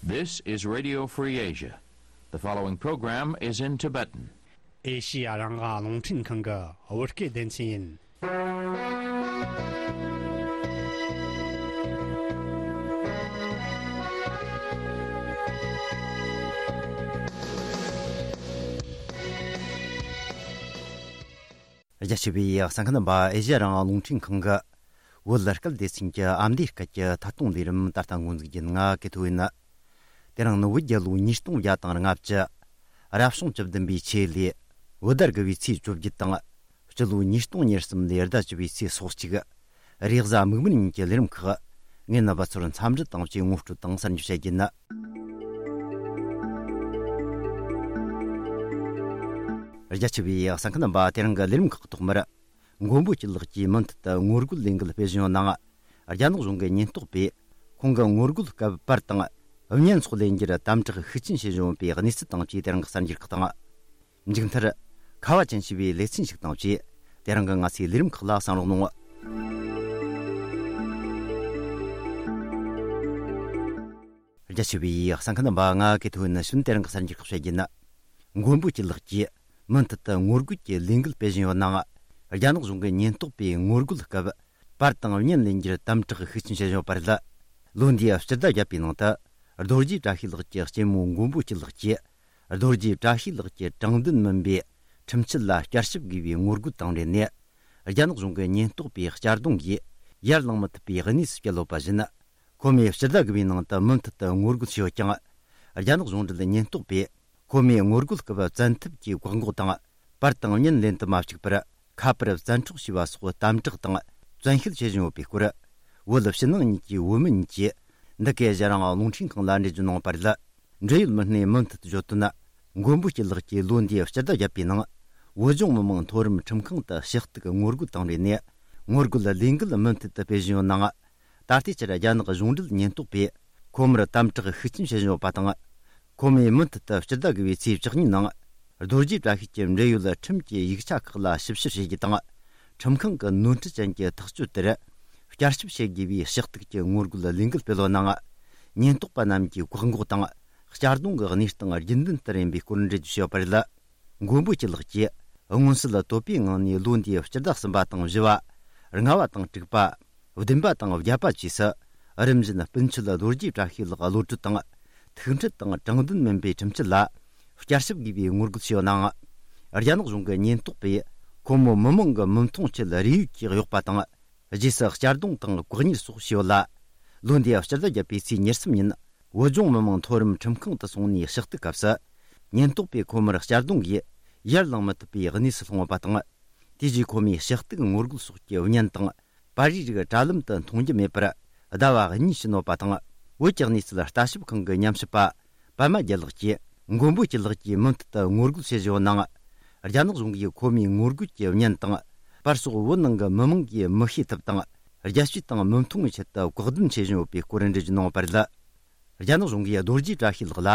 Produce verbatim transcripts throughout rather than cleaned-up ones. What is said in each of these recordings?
This is Radio Free Asia. The following program is in Tibetan. ཨེ་ཤི་ཡ་རང་དབང་རླུང་འཕྲིན་ཁང་གི་བོད་སྐད་སྡེ་ཚན་ཡིན། རྒྱ་ཆེ་བའི་གསན་མཁན་རྣམ་པ། ཨེ་ཤི་ཡ་རང་དབང་རླུང་འཕྲིན་ཁང་གི་བོད་སྐད་སྡེ་ཚན་གྱི་ཨ་མདོའི་སྐད་ཀྱི་ཐད་གཏོང་ལས་རིམ་ད་ལྟ་འགོ་འཛུགས་རྒྱུ་ཡིན། ང་ཀེ་ཐོ་ཡིན། དེ་རིང་ནི་བོད་རྒྱལ་ལོ་ཉིས་སྟོང་བརྒྱ་དང་ལྔ་བཅུ། རབ་བྱུང་བཅུ་བདུན་པའི་ཆེས་ལས། བོད་ཟླ་དགུ་བའི་ཚེས་བཅོ་བརྒྱད་དང་། སྤྱི་ལོ་ཉིས་སྟོང་ཉེར་གསུམ་ལོའི་ཟླ་བཅུ་བའི་ཚེས་སོ་གཅིག། རེས་གཟའ་མིག་དམར་ཉིན་གྱི་ལས་རིམ་ཁག། ངས་རྣམ་པ་ཚོར་འཚམས་འདྲི་དང་བཅས་ངོ་སྤྲོད་དང་གསར་འགྱུར་བཤད་རྒྱུ་ཡིན། རྒྱ་ཆེ་བའི་གསན་མཁན་རྣམ་པ། དེ་རིང་གི་ལས་རིམ་ཁག་ཐོག་མར། མགོན་པོ་སྐྱིད་ལགས་ཀྱིས་མུ་མཐུད་དུ་ངོ་རྒོལ་ལས་འགུལ་སྤེལ་བཞིན་ཡོད་ནའང་། རྒྱ་ནག་གཞུང་གི་ཉེན་རྟོག་པས་ཁོང་གི་ངོ་རྒོལ་སྐབས་པར་དང་བརྙན་སོགས་ལེན་རྒྱུར་དམ་དྲག་ཤུགས་ཆེན་བྱེད་བཞིན་ཡོད་པའི་གནས་ཚུལ་དང་བཅས་དེ་རིང་གི་གསར་འགྱུར་ཁག་དང་། མཇུག་མཐར། ཁ་བ་ཅན་ཞེས་པའི་ལེ་ཚན་ཞིག་དང་བཅས། དེ་རིང་གི་ང་ཚོའི་ལས་རིམ་ཁག་ལ་གསན་རོགས་གནང་། རྒྱ་ཆེ་བའི་གསན་མཁན་རྣམ་པ། ང་ཀེ་ཐོ་ཡིན། ཕྱི་དེ་རིང་གི་གསར་འགྱུར་ཁག་བཤད་རྒྱུ་ཡིན། མགོན་པོ་སྐྱིད་ལགས་ཀྱིས་མུ་མཐུད་དུ་ངོ་རྒོལ་གྱི་ལས་འགུལ་སྤེལ་བཞིན་ཡོད་ནའང་། རྒྱ་ནག་གཞུང་གི་ཉེན་རྟོག་པས་ངོ་རྒོལ་སྐབས་པར་དང་བརྙན་ལེན་རྒྱུར་དམ་དྲག་ཤུགས་ཆེན་བྱེད་བཞིན་ཡོད་པ་རེད། ལོ་འདིའི་སྤྱི་ཟླ་བརྒྱད་པའི་ནང་དུ། རྡོ་རྗེ་བཀྲ་ཤིས་ལགས་ཀྱི་གཅེན་མོ་མགོན་པོ་སྐྱིད་ལགས་ཀྱིས། རྡོ་རྗེ་བཀྲ་ཤིས་ལགས་ཀྱི་དྲང་བདེན་མིན་པའི་ཁྲིམས་ཆད་ལ་བསྐྱར་ཞིབ་དགོས་པའི་ངོ་རྒོལ་དང་འབྲེལ་ནས། རྒྱ་ནག་གཞུང་གི་ཉེན་རྟོག་པའི་གཅར་རྡུང་གིས་ཡར་ལངས་མི་ཐུབ་པའི་གནས་སུ་བསྐྱལ་ཡོད་པ་བཞིན། ཁོ་མོས་སྤྱི་ཟླ་དགུ་པའི་ནང་དུ་མུ་མཐུད་དུ་ངོ་རྒོལ་བྱས་ཡོད་ཀྱང་། རྒྱ་ནག་གཞུང་འབྲེལ་ཉེན་རྟོག་པས་ཁོ་མོའི་ངོ་རྒོལ་སྐབས་བཙན་ཐབས་ཀྱིས་བཀག་འགོག་དང་། པར་དང་བརྙན་ལེན་དུ་མ་བཅུག་པར། ཁ་པར་བཙན་འཕྲོག་བྱས་པ་སོགས་དམ་དྲག་དང་བཙན་ཤེད་བྱེད་བཞིན་ཡོད་པའི་སྐོར། བོད་ཕྱི་ནང་གཉིས་ཀྱི་བོད་མི་གཉིས་ཀྱིས་འདི་གའི་ཨེ་ཤི་ཡ་རང་དབང་རླུང་འཕྲིན་ཁང་ལ་འགྲེལ་བརྗོད་གནང་བ་རེད། འབྲེལ་ཡོད་མི་སྣས་མུ་མཐུད་བརྗོད་དོན། མགོན་པོ་སྐྱིད་ལགས་ཀྱིས་ལོ་འདིའི་སྤྱི་ཟླ་བརྒྱད་པའི་ནང་། བོད་ལྗོངས་མི་དམངས་མཐོ་རིམ་ཁྲིམས་ཁང་དུ་ཞུ་གཏུག་ངོ་རྒོལ་དང་འབྲེལ་ནས། ངོ་རྒོལ་ལས་འགུལ་མུ་མཐུད་དུ་སྤེལ་བཞིན་ཡོད་ནའང་། ད་ལྟའི་ཆར་རྒྱ་ནག་གཞུང་འབྲེལ་ཉེན་རྟོག་པས་ཁོ་མོར་དམ་དྲག་ཤུགས་ཆེན་བྱེད་བཞིན་ཡོད་པ་དང་། ཁོ་མོས་མུ་མཐུད་དུ་སྤྱི་ཟླ་དགུ་པའི་ཚེས་བཅུ་གཉིས་ནང་། རྡོ་རྗེ་བཀྲ་ཤིས་ཀྱི་འབྲེལ་ཡོད་ཁྲིམས་ཀྱི་ཡིག་ཆ་ཁག་ལ་ཞིབ་བཤེར་བྱེད་རྒྱུ་དང་། ཁྲིམས་ཁང་གི་ནོར་འཁྲུལ་ཅན་གྱི་ཐག་གཅོད་དེར་བསྐྱར་ཞིབ་བྱེད་དགོས་པའི་ཞུ་གཏུག་གི་ངོ་རྒོལ་ལས་འགུལ་སྤེལ་ཡོད་ནའང་། ཉེན་རྟོག་པ་རྣམས་ཀྱིས་བཀག་འགོག་དང་། གཅར་རྡུང་གི་གནས་སྟངས་རྒྱུན་ལྡན་ལྟར་ཡིན་པའི་སྐོར་འགྲེལ་བརྗོད་བྱས་ཡོད་པ་རེད། མགོན་པོ་སྐྱིད་ལགས་ཀྱིས་མངོན་གསལ་དོད་པོའི་ངང་ནས་ལོ་འདིའི་སྤྱི་ཟླ་གསུམ་པ་དང་བཞི་བ། ལྔ་བ་དང་དྲུག་པ། བདུན་པ་དང་བརྒྱད་པ་བཅས་སུ། རིམ་བཞིན་སྤུན་མཆེད་རྡོ་རྗེ་བཀྲ་ཤིས་ལགས་གློད་གྲོལ་དང་། ཐུག་འཕྲད་དང་དྲང་བདེན་མིན་པའི་ཁྲིམས་ཆད་ལ། བསྐྱར་ཞིབ་དགོས་པའི་ངོ་རྒོལ་བྱས་ཡོད་ནའང་། རྒྱ་ནག་གཞུང་གི་ཉེན་རྟོག་པས། ཁོ་མོ་མི་མང་གི་མི་མཐོང་ཆེད་རེས་ཡོད་ཀྱིས་གཡོགས་པ་དང་། རྗེས་སུ་གཅར་རྡུང་དང་ལྐོག་གཉེར་སོགས་བྱས་ཡོད་ལ། ལོ་འདིའི་སྤྱི་ཟླ་བརྒྱད་པའི་ཚེས་ཉེར་གསུམ་ཉིན། བོད་ལྗོངས་མི་དམངས་མཐོ་རིམ་ཁྲིམས་ཁང་དུ་སོང་ནས་ཞུ་གཏུག་སྐབས་སུ། ཉེན་རྟོག་པས་ཁོ་མོར་གཅར་རྡུང་གིས་ཡར་ལངས་མི་ཐུབ་པའི་གནས་སུ་ལྷུང་ཡོད་པ་དང་། དེ་རྗེས་ཁོ་མོས་ཞུ་གཏུག་ངོ་རྒོལ་སོགས་ཀྱི་བརྙན་དང་། པར་རིས་རིགས་དྲ་ལམ་དུ་མཐོང་རྒྱུ་མེད་པར་ཟླ་བ་གཉིས་ཕྱིན་ཡོད་པ་དང་། བོད་ཀྱི་གནས་ཚུལ་ལྟ་ཞིབ་ཁང་གི་ཉམས་ཞིབ་པ་པད་མ་རྒྱལ་ལགས་ཀྱིས། མགོན་པོ་སྐྱིད་ལགས་ཀྱིས་མུ་མཐུད་དུ་ངོ་རྒོལ་བྱེད་བཞིན་ཡོད་ནའང་། རྒྱ་ནག་གཞུང་གིས་ཁོ་མོའི་ངོ་རྒོལ་གྱི་བརྙན་དང་། པར་སོགས་བོད་ནང་གི་མི་མང་གིས་མི་ཤེས་ཐབས་དང་། རྒྱལ་སྤྱི་དང་མི་མཐུན་པའི་ཆེད་དུ་བཀག་སྡོམ་བྱེད་བཞིན་ཡོད་པའི་སྐོར་འགྲེལ་བརྗོད་གནང་བ་རེད། རྒྱ་ནག་གཞུང་གིས་རྡོ་རྗེ་བཀྲ་ཤིས་ལགས་ལ།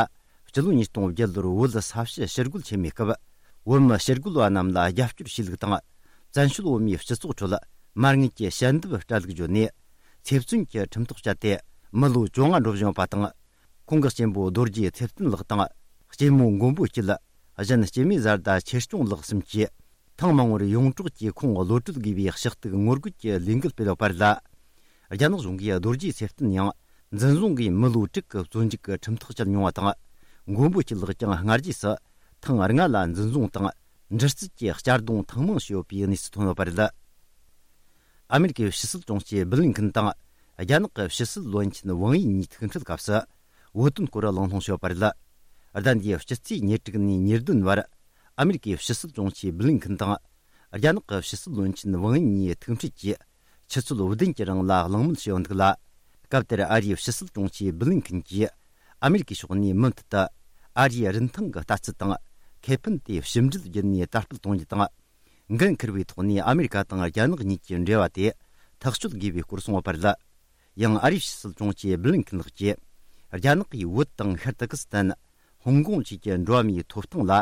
སྤྱི་ལོ་ཉིས་སྟོང་བརྒྱད་ལོར་བོད་ས་ཕྱི་ཕྱིར་རྒོལ་ཆེན་མོའི་སྐབས། བོད་མི་ཕྱིར་རྒོལ་བ་རྣམས་ལ་རྒྱབ་སྐྱོར་བྱས་ལུགས་དང་། བཙན་བྱོལ་བོད་མིའི་སྤྱི་ཚོགས་ཁྲོད་མ་དངུལ་གྱི་ཞལ་འདེབས་སྤྲད་ལུགས་བརྗོད་ནས། ཚེ་བཙོན་གྱི་ཁྲིམས་ཐག་བཅད་དེ། མི་ལོ་བཅོ་ལྔ་འགྲོ་བཞིན་ཡོད་པ་དང་། ཁོང་གི་གཅེན་པོ་རྡོ་རྗེ་ཚེ་བརྟན་ལགས་དང་། གཅེན་མོ་མགོན་པོ་སྐྱིད། གཞན་སྐྱེ་དམན་བཟའ་ཟླ་ཆེ་སྐྱོང་ལགས་གསུམ་གྱིས། ཐེངས་མང་བོར་ཡོངས་གྲགས་ཀྱིས་ཁོང་གློད་གྲོལ་དགོས་པའི་ཞུ་གཏུག་ངོ་རྒོལ་གྱི་ལས་འགུལ་སྤེལ་ཡོད་པ་རེད། རྒྱ་ནག་གཞུང་གིས་རྡོ་རྗེ་ཚེ་བརྟན་ཡང་འཛིན་བཟུང་གིས་མི་ལོ་དྲུག་གི་བཙོན་འཇུག་གི་ཁྲིམས་ཐག་བཅད་མྱོང་བ་དང་། མགོན་པོ་སྐྱིད་ལགས་ཀྱང་སྔ་རྗེས་སུ་ཐེངས་ལྔ་ལ་འཛིན་བཟུང་དང་། འདྲི་རྩད་ཀྱི་གཅར་རྡུང་ཐེངས་མང་བྱས་ཡོད་པའི་གནས་ཚུལ་ཐོན་ཡོད་པ་རེད། ཨ་མེ་རི་ཀའི་ཕྱི་སྲིད་དྲུང་ཆེ་བྷི་ལིན་ཁིན་དང་། རྒྱ་ནག་གི་ཕྱི་སྲིད་བློན་ཆེན་ཝང་ཡི་གཉིས་ཐུག་འཕྲད་སྐབས་སུ། བོད་དོན་སྐོར་གླེང་སློང་བྱས་ཡོད་པ་རེད། ཟླ་འདིའི་སྤྱི་ཚེས་ཉེར་དྲུག་ནས་ཉེར་བདུན་བར། ཨ་མེ་རི་ཀའི་ཕྱི་སྲིད་དྲུང་ཆེ་བྷི་ལིན་ཁིན་དང་། རྒྱ་ནག་གི་ཕྱི་སྲིད་བློན་ཆེན་ཝང་ཡི་གཉིས་ཐུག་འཕྲད་ཀྱིས། ཆུ་ཚོད་བདུན་གྱི་རིང་ལ་གླེང་མོལ་བྱས་ཡོད་འདུག་ལ། སྐབས་དེར་ཨ་རིའི་ཕྱི་སྲིད་དྲུང་ཆེ་བྷི་ལིན་ཁིན་གྱིས། ཨ་མེ་རི་ཀའི་ཕྱོགས་ནས་མུ་མཐུད་དུ། ཨ་རིའི་རིན་ཐང་གི་ལྟ་ཚུལ་དང་། ཁེ་ཕན་དེ་ཕྱི་འབྲེལ་བརྒྱུད་ནས་དར་སྤེལ་གཏོང་རྒྱུ་དང་། འགན་འཁུར་བའི་ཐོག་ནས་ཨ་མེ་རི་ཀ་དང་རྒྱ་ནག་གཉིས་ཀྱི་འབྲེལ་བ་དེ་ཐག་གཅོད་དགོས་པའི་སྐོར་གསུངས་ཡོད་པ་རེད། ཡང་ཨ་རིའི་ཕྱི་སྲིད་དྲུང་ཆེ་བྷི་ལིན་ཁིན་ལགས་ཀྱིས། རྒྱ་ནག་གིས་བོད་དང་ཤར་ཏུར་ཀི་སི་ཐན། ཧོང་ཀོང་བཅས་ཀྱི་འགྲོ་བ་མིའི་ཐོབ་ཐང་ལ་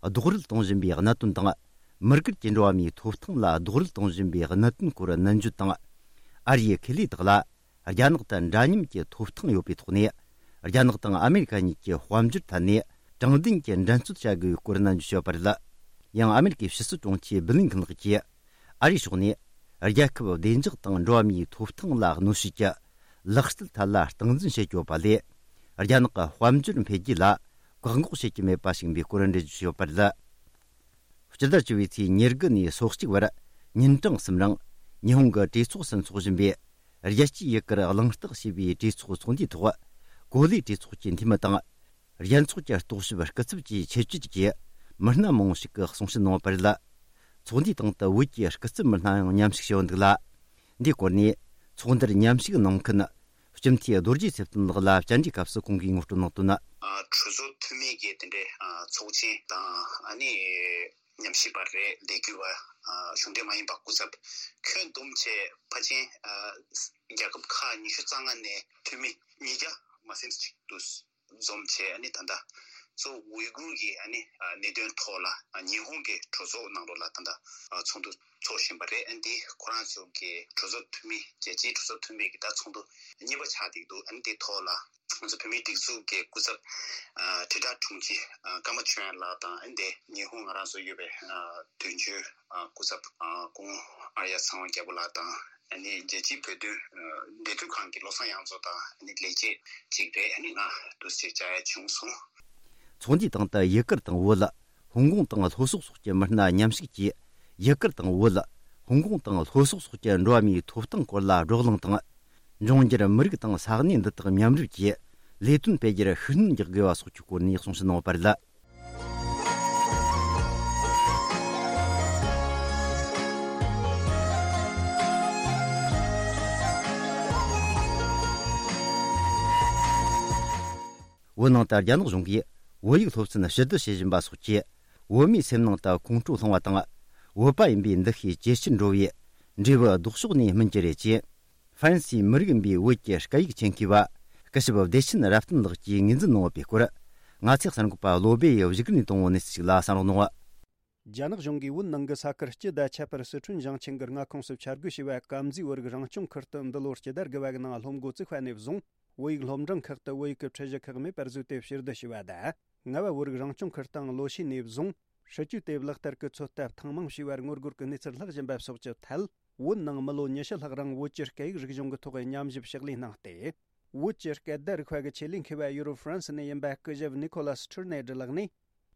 རྡོག་རོལ་གཏོང་བཞིན་པའི་གནད་དོན་དང་། མི་སྒེར་གྱི་འགྲོ་བ་མིའི་ཐོབ་ཐང་ལ་རྡོག་རོལ་གཏོང་བཞིན་པའི་གནད་དོན་སྐོར་ནན་བརྗོད་དང་། ཨ་རིའི་ཁེ་ལས་དག་ལ། རྒྱ་ནག་དང་འདྲ་མཉམ་གྱི་ཐོབ་ཐང་ཡོད་པའི་ཐོག་ནས། རྒྱ་ནག་དང་ཨ་མེ་རི་ཁ་གཉིས་ཀྱི་དཔལ་འབྱོར་ཐད་ནས་དྲང་བདེན་གྱི་འགྲན་རྩོད་བྱ་དགོས་པའི་སྐོར་ནན་བརྗོད་བྱས་ཡོད་པ་རེད། ཡང་ཨ་མེ་རི་ཁའི་ཕྱི་སྲིད་དྲུང་ཆེ་བྷི་ལིན་ཁིན་ལགས་ཀྱིས་ཨ་རིའི་ཕྱོགས་ནས་རྒྱལ་ཁབ་བདེ་འཇགས་དང་འགྲོ་བ་མིའི་ཐོབ་ཐང་ལ་གནོད་བྱེད་ཀྱི་ལག་རྩལ་ཐད་ལ་སྟངས་འཛིན་བྱེད་ཀྱི་ཡོད་པ་ལས། རྒྱ་ནག་གི་དཔལ་འབྱོར་འཕེལ་རྒྱས་ལ་བཀག་འགོག་བྱེད་ཀྱི་མེད་པ་ཞིག་ཡིན་པའི་སྐོར་འགྲེལ་བརྗོད་བྱས་ཡོད་པ་རེད། སྤྱི་ཟླ་བཅུ་པའི་ཚེས་ཉེར་དགུ་ནས་སོ་གཅིག་བར་ཉིན་གྲངས་གསུམ་རིང་ཉི་ཧོང་གི་གྲོས་ཚོགས་སུ་འཚོགས་བཞིན་པའི་རྒྱལ་སྤྱིའི་ཡུལ་གར་གླེང་སྟེགས་ཞེས་པའི་གྲོས་ཚོགས་ཚོགས་འདུའི་ཐོག་གོ་ལའི་གྲོས་ཚོགས་ཀྱི་འཐུས་མི་དང་། རྒྱལ་ཚོགས་ཀྱི་རྟོག་ཞིབ་སྐུ་ཚབ་བཅས་ཆེད་བསྐྱོད་ཀྱིས་མི་སྣ་མང་བོ་ཞིག་གིས་གསུང་བཤད་གནང་བ་རེད། ཚོགས་འདུའི་སྟེང་དུ་བོད་ཀྱི་སྐུ་ཚབ་མི་སྣ་ཡང་མཉམ་ཞུགས་བྱས་ཡོད་འདུག་ལ། འདིའི་སྐོར་ནས་ཚོགས་འདུར་མཉམ་ཞུགས་གནང་མཁན་སྤྱི་འཐུས་རྡོ་རྗེ་ཚེ་བརྟན་ལགས་ལ་བཅར་འདྲིའི་སྐབས་སུ་ཁོང་གིས་ངོ་སྤྲོད་གནང་དོན། ཨ། གྲོས་ཚོགས་འཐུས་མི་གི་དེ་འདྲའི་ཨ་ཚོགས་ཆེན་དང་ཨ་ནི་ཉམས་ཞིབ་པ་རེད་ལས་འགུལ་བ། ཨ། གཞུང་འབྲེལ་མ་ཡིན་པ་སྐུ་ཚབ་ཁྱོན་བསྡོམས་བྱས་ཕལ་ཆེར་ཨ་རྒྱལ་ཁབ་ཁག་ཉི་ཤུ་རྩ་ལྔ་ནས་འཐུས་མི་ཉིས་བརྒྱ་མ་ཟིན་ཅིག་འདུག་འཛོམས་བྱས་ཨ་ནི་ད་ལྟ་གཙོ་བོ་ཝུའི་གུར་གྱི་ཨ་ནི་ཨ་གནད་དོན་ཐོག་ལ་ཨ་ཉི་ཧོང་གི་གྲོས་ཚོགས་ནང་ལོགས་ལ་ད་ལྟ་ཨ་ཚོགས་འདུ་འཚོགས་བཞིན་པ་རེད། ཨ་འདི་ཁོ་རང་ཚོ་གི་གྲོས་ཚོགས་འཐུས་མི་རྒྱལ་སྤྱིའི་གྲོས་ཚོགས་འཐུས་མི་གི་ད་ཚོགས་འདུ་གཉིས་པ་ཆགས་བསྡད་འདུག་ཨ་ནི་འདི་ཐོག་ལ་ང་ཚོ་བོད་མིའི་སྒྲིག་འཛུགས་ཀྱི་སྐུ་ཚབ་ཨ་དྲིལ་བསྒྲགས་དྲུང་ཆེ་ཨ་ཀརྨ་ཆོས་དབྱངས་ལགས་དང་ཨ་ནི་འདི་ཉི་ཧོང་ང་རང་ཚོ་ཡོད་པའི་ཨ་དོན་གཅོད་ཨ་སྐུ་ཚབ་ཨ་སྐུ་ངོ་ཨརྱ་ཚེ་དབང་རྒྱལ་པོ་ལགས་དང་། ཨ་ནི་རྒྱལ་སྤྱིའི་བོད་དོན་ཨ་འབྲེལ་མཐུད་ཁང་གི་བློ་བཟང་དབྱངས་མཚོ་དང་ཨ་ནི་ལས་བྱེད་ཅིག་རེད། ཨ་ནི་ང་འདུག་སེ་བཅར་ཡ་བྱུང་སོང་། ཚོགས་འདུའི་སྟེང་དུ་ཡུ་གུར་དང་བོད། ཧོང་ཀོང་དང་ལྷོ་ཕྱོགས་སོགས་ཀྱི་མི་སྣ་མཉམ་ཞུགས་ཀྱིས། ཡུ་གུར་དང་བོད། ཧོང་ཀོང་དང་ལྷོ་ཕྱོགས་སོགས་ཀྱི་འགྲོ་བ་མིའི་ཐོབ་ཐང་སྐོར་ལ་བགྲོ་གླེང་དང་། འབྱུང་འགྱུར་མི་རིགས་དང་ས་གནས་འདི་དག་མཉམ་རུབ་ཀྱིས་ལས་དོན་སྤེལ་རྒྱུར་ཤུགས་སྣོན་རྒྱག་དགོས་པ་སོགས་ཀྱི་སྐོར་ནས་གསུང་བཤད་གནང་བ་རེད། བོད་ནང་དུ་རྒྱ་ནག་གཞུང་གིས་བོད་ཡིག་སློབ་ཚན་ཞི་བསྡུ་བྱེད་བཞིན་པ་སོགས་ཀྱིས་བོད་མིའི་སེམས་ནང་དུ་ཁོང་ཁྲོ་སློང་བ་དང་། བོད་པ་ཡིན་པའི་འདུ་ཤེས་ཇེ་ཆེར་འགྲོ་བའི་འབྲས་བུ་ལྡོག་ཕྱོགས་ནས་སྨིན་གྱི་རེད་ཅེས། ཧྥ་རན་སིའི་མི་རིགས་ཡིན་པའི་བོད་ཀྱི་སྐད་ཡིག་ཆེད་མཁས་པ་སྐུ་ཞབས་བདེ་ཆེན་རབ་བརྟན་ལགས་ཀྱིས་ངོས་འཛིན་གནང་བ་པའི་སྐོར། ང་ཚོའི་གསར་འགོད་པ་བློ་སྦེ་ཡིས་བཞུགས་སྒར་ནས་བཏང་བའི་གནས་ཚུལ་ཞིག་ལ་གསན་རོགས་གནང་། རྒྱ་ནག་གཞུང་གིས་བོད་ནང་གི་ས་ཁུལ་སྤྱི་དང་ཁྱད་པར་སི་ཁྲོན་ཞིང་ཆེན་གྱི་མངའ་ཁོངས་སུ་འཆར་འགོད་བྱས་པའི་དཀར་མཛེས་བོད་རིགས་རང་སྐྱོང་ཁུལ་དུ་འདི་ལོར་སྤྱི་ཟླ་དགུ་པ་གི་ནང་སློབ་འགོ་བཙུགས་པ་ནས་བཟུང་བོད་ཡིག་སློབ་འབྲིང་ཁག་ཏུ་བོད་ཡིག་གི་ཁྲིད་གཞི་ཁག་མེད་པར་བཟོས་ཏེ་ཕྱིར་བསྡུ་བྱས་པ་དང་། རྔ་བ་བོད་རིགས་རང་སྐྱོང་ཁུལ་དང་ལོ་ཤས་ནས་བཟུང་སྲིད་ཇུས་དེ་ལག་བསྟར་གྱི་ཚོད་ལྟ་ཐེངས་མང་བྱས་པར་ངོ་རྒོལ་གྱི་གནས་ཚུལ་ལྷག་བཞིན་པ་སོགས་ཀྱི་ཐད། བོད་ནང་མི་ལོ་ཉི་ཤུ་ལྷག་རིང་བོད་ཀྱི་སྐད་ཡིག་རིག་གཞུང་གི་ཐོག་ཉམས་ཞིབ་ཕྱག་ལས་གནང་སྟེ། བོད་ཀྱི་སྐད་བརྡ་རིག་པ་གི་ཆེད་ལས་མཁས་པ་ཡུ་རོབ་ཧྥ་རན་སི་ནས་ཡིན་པ་སྐུ་ཞབས་ནི་ཁོ་ལ་སི་ཁྲིར་ནེ་ཌི་ལགས་ནས།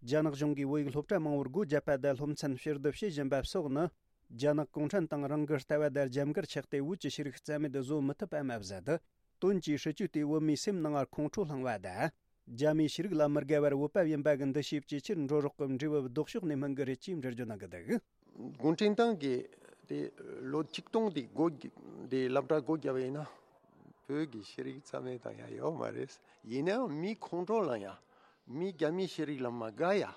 རྒྱ་ནག་གཞུང་གིས་བོད་ཡིག་སློབ་གྲྭ་མང་བོར་སྒོ་བརྒྱབ་པ་དང་སློབ་ཚན་ཕྱིར་བསྡུ་བྱེད་བཞིན་པ་སོགས་ནི། རྒྱ་ནག་གུང་ཁྲན་ཏང་རང་གི་ལྟ་བ་དང་རྒྱབ་འགལ་ཆགས་ཏེ་བོད་ཀྱི་ཤེས་རིག་རྩ་མེད་བཟོ་མི་ཐུབ་པ་མ་ཟད། དོན་གྱིས་སྲིད་ཇུས་དེས་བོད་མིའི་སེམས་ནང་ཁོང་ཁྲོ་བསླངས་པ་དང་། རྒྱ་མིའི་ཤེས་རིག་ལ་མི་དགའ་བར་བོད་པ་ཡིན་པ་གི་འདུ་ཤེས་ཇེ་ཆེར་འགྲོ་རོགས་ཀྱི་འབྲས་བུ་ལྡོག་ཕྱོགས་ནས་སྨིན་གི་རེད་ཅེས་འགྲེལ་བརྗོད་གནང་གི་འདུག་གུང་ཁྲན་ཏང་གིས་དེ་ལོ་ཆིག་སྟོང་དེ་སྒོ་དེ་སློབ་གྲྭ་སྒོ་བརྒྱབ་པ་ཡིན་ན། བོད་ཀྱི་ཤེས་རིག་རྩ་མེད་བཏང་ཡ་ཡོད་མ་རེད། ཡིན་ནའང་མི་ཁོང་ཁྲོ་ལངས་ཡ། མི་རྒྱ་མིའི་ཤེས་རིག་ལ་མ་དགའ་ཡ།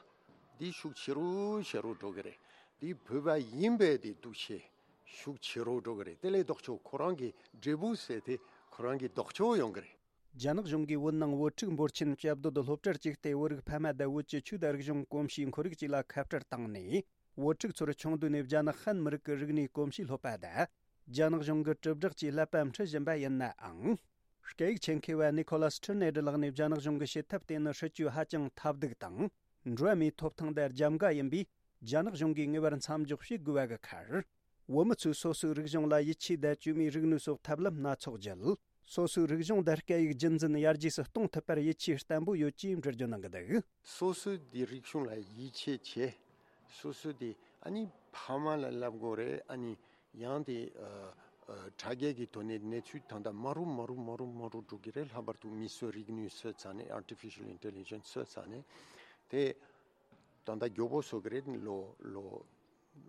འདི་ཤུགས་ཆེ་རུ་ཆེ་རུ་འགྲོ་གི་རེད། འདི་བོད་པ་ཡིན་པའི་དེ་འདུ་ཤེས་ཤུགས་ཆེ་རུ་འགྲོ་གི་རེད། དེ་ལས་ལྡོག་ཕྱོགས་ཁོ་རང་གི་འབྲས་བུ་ཟེར་དེ་ཁོ་རང་གི་ལྡོག་ཕྱོགས་ཡོང་གི་རེད། རྒྱ་ནག་གཞུང་གིས་བོད་ནང་བོད་ཕྲུག་འབོར་ཆེན་བཅའ་སྡོད་སློབ་གྲྭར་བཅུག་སྟེ་བོད་རིགས་ཕ་མ་དང་བོད་ཀྱི་ཆོས་དང་རིག་གཞུང་གོམས་གཤིས་ཁོར་ཡུག་བཅས་ལ་ཁ་བྲལ་བཏང་ནས། བོད་ཕྲུག་ཚོར་ཆུང་དུས་ནས་རྒྱ་ནག་ཧན་མི་རིགས་ཀྱི་རིག་གནས་གོམས་གཤིས་སློབ་པ་དང་། རྒྱ་ནག་གཞུང་གི་དྲིལ་བསྒྲགས་ཀྱིས་ཀླད་པ་འཁྲུད་བཞིན་པ་ཡིན་ནའང་། སྐད་ཡིག་ཆེད་མཁས་པ་ནི་ཁོ་ལ་སི་ཁྲིར་ནེ་ཌི་ལགས་ནས་རྒྱ་ནག་གཞུང་གི་བྱེད་ཐབས་དེ་ནི་སྲིད་ཇུས་ཧ་ཅང་ཐབས་སྡུག་དང་། འགྲོ་བ་མིའི་ཐོབ་ཐང་དང་རྒྱབ་འགལ་ཡིན་པས། རྒྱ་ནག་གཞུང་གིས་ངེས་པར་མཚམས་འཇོག་བྱེད་དགོས་པ་གི་ཁར། བོད་མི་ཚོས་སོ་སོའི་རིག་གཞུང་ལ་ཡིད་ཆེས་དང་བཅོས་མའི་རིག་ནུས་སོགས་ཐབས་ལམ་སྣ་ཚོགས་བརྒྱུད། སོ་སོའི་རིག་གཞུང་དང་སྐད་ཡིག་རྒྱུན་འཛིན་ཡར་རྒྱས་སུ་གཏོང་ཐུབ་པར་ཡིད་ཆེས་བརྟན་པོ་ཡོད་ཅེས་འགྲེལ་བརྗོད་གནང་གི་འདུག་སོ་སོའི་དེ་རིག་གཞུང་ལ་ཡིད་ཆེས་བྱེད། སོ་སོའི་དེ་ཨ་ནི་ཕ་མ་ལ་བསླབ་དགོས་རེད། ཨ་ནི་ཡང་དེ་ཨ་ཨ་དྲ་རྒྱའི་གི་ཐོག་ནས་གནས་ཚུལ་ད་ལྟ་མ་རུ་མ་རུ་མ་རུ་མ་རུ་འགྲོ་གི་རེད། ལྷག་པར་དུ་མིས་བཟོས་རིག་ནུས་བཟོས་ཚར་ནས། artificial intelligence བཟོས་ཚར་ནས་དེ་ད་ལྟ་མགྱོགས་པོ་བཟོ་གི་རེད། ལོ་ལོ་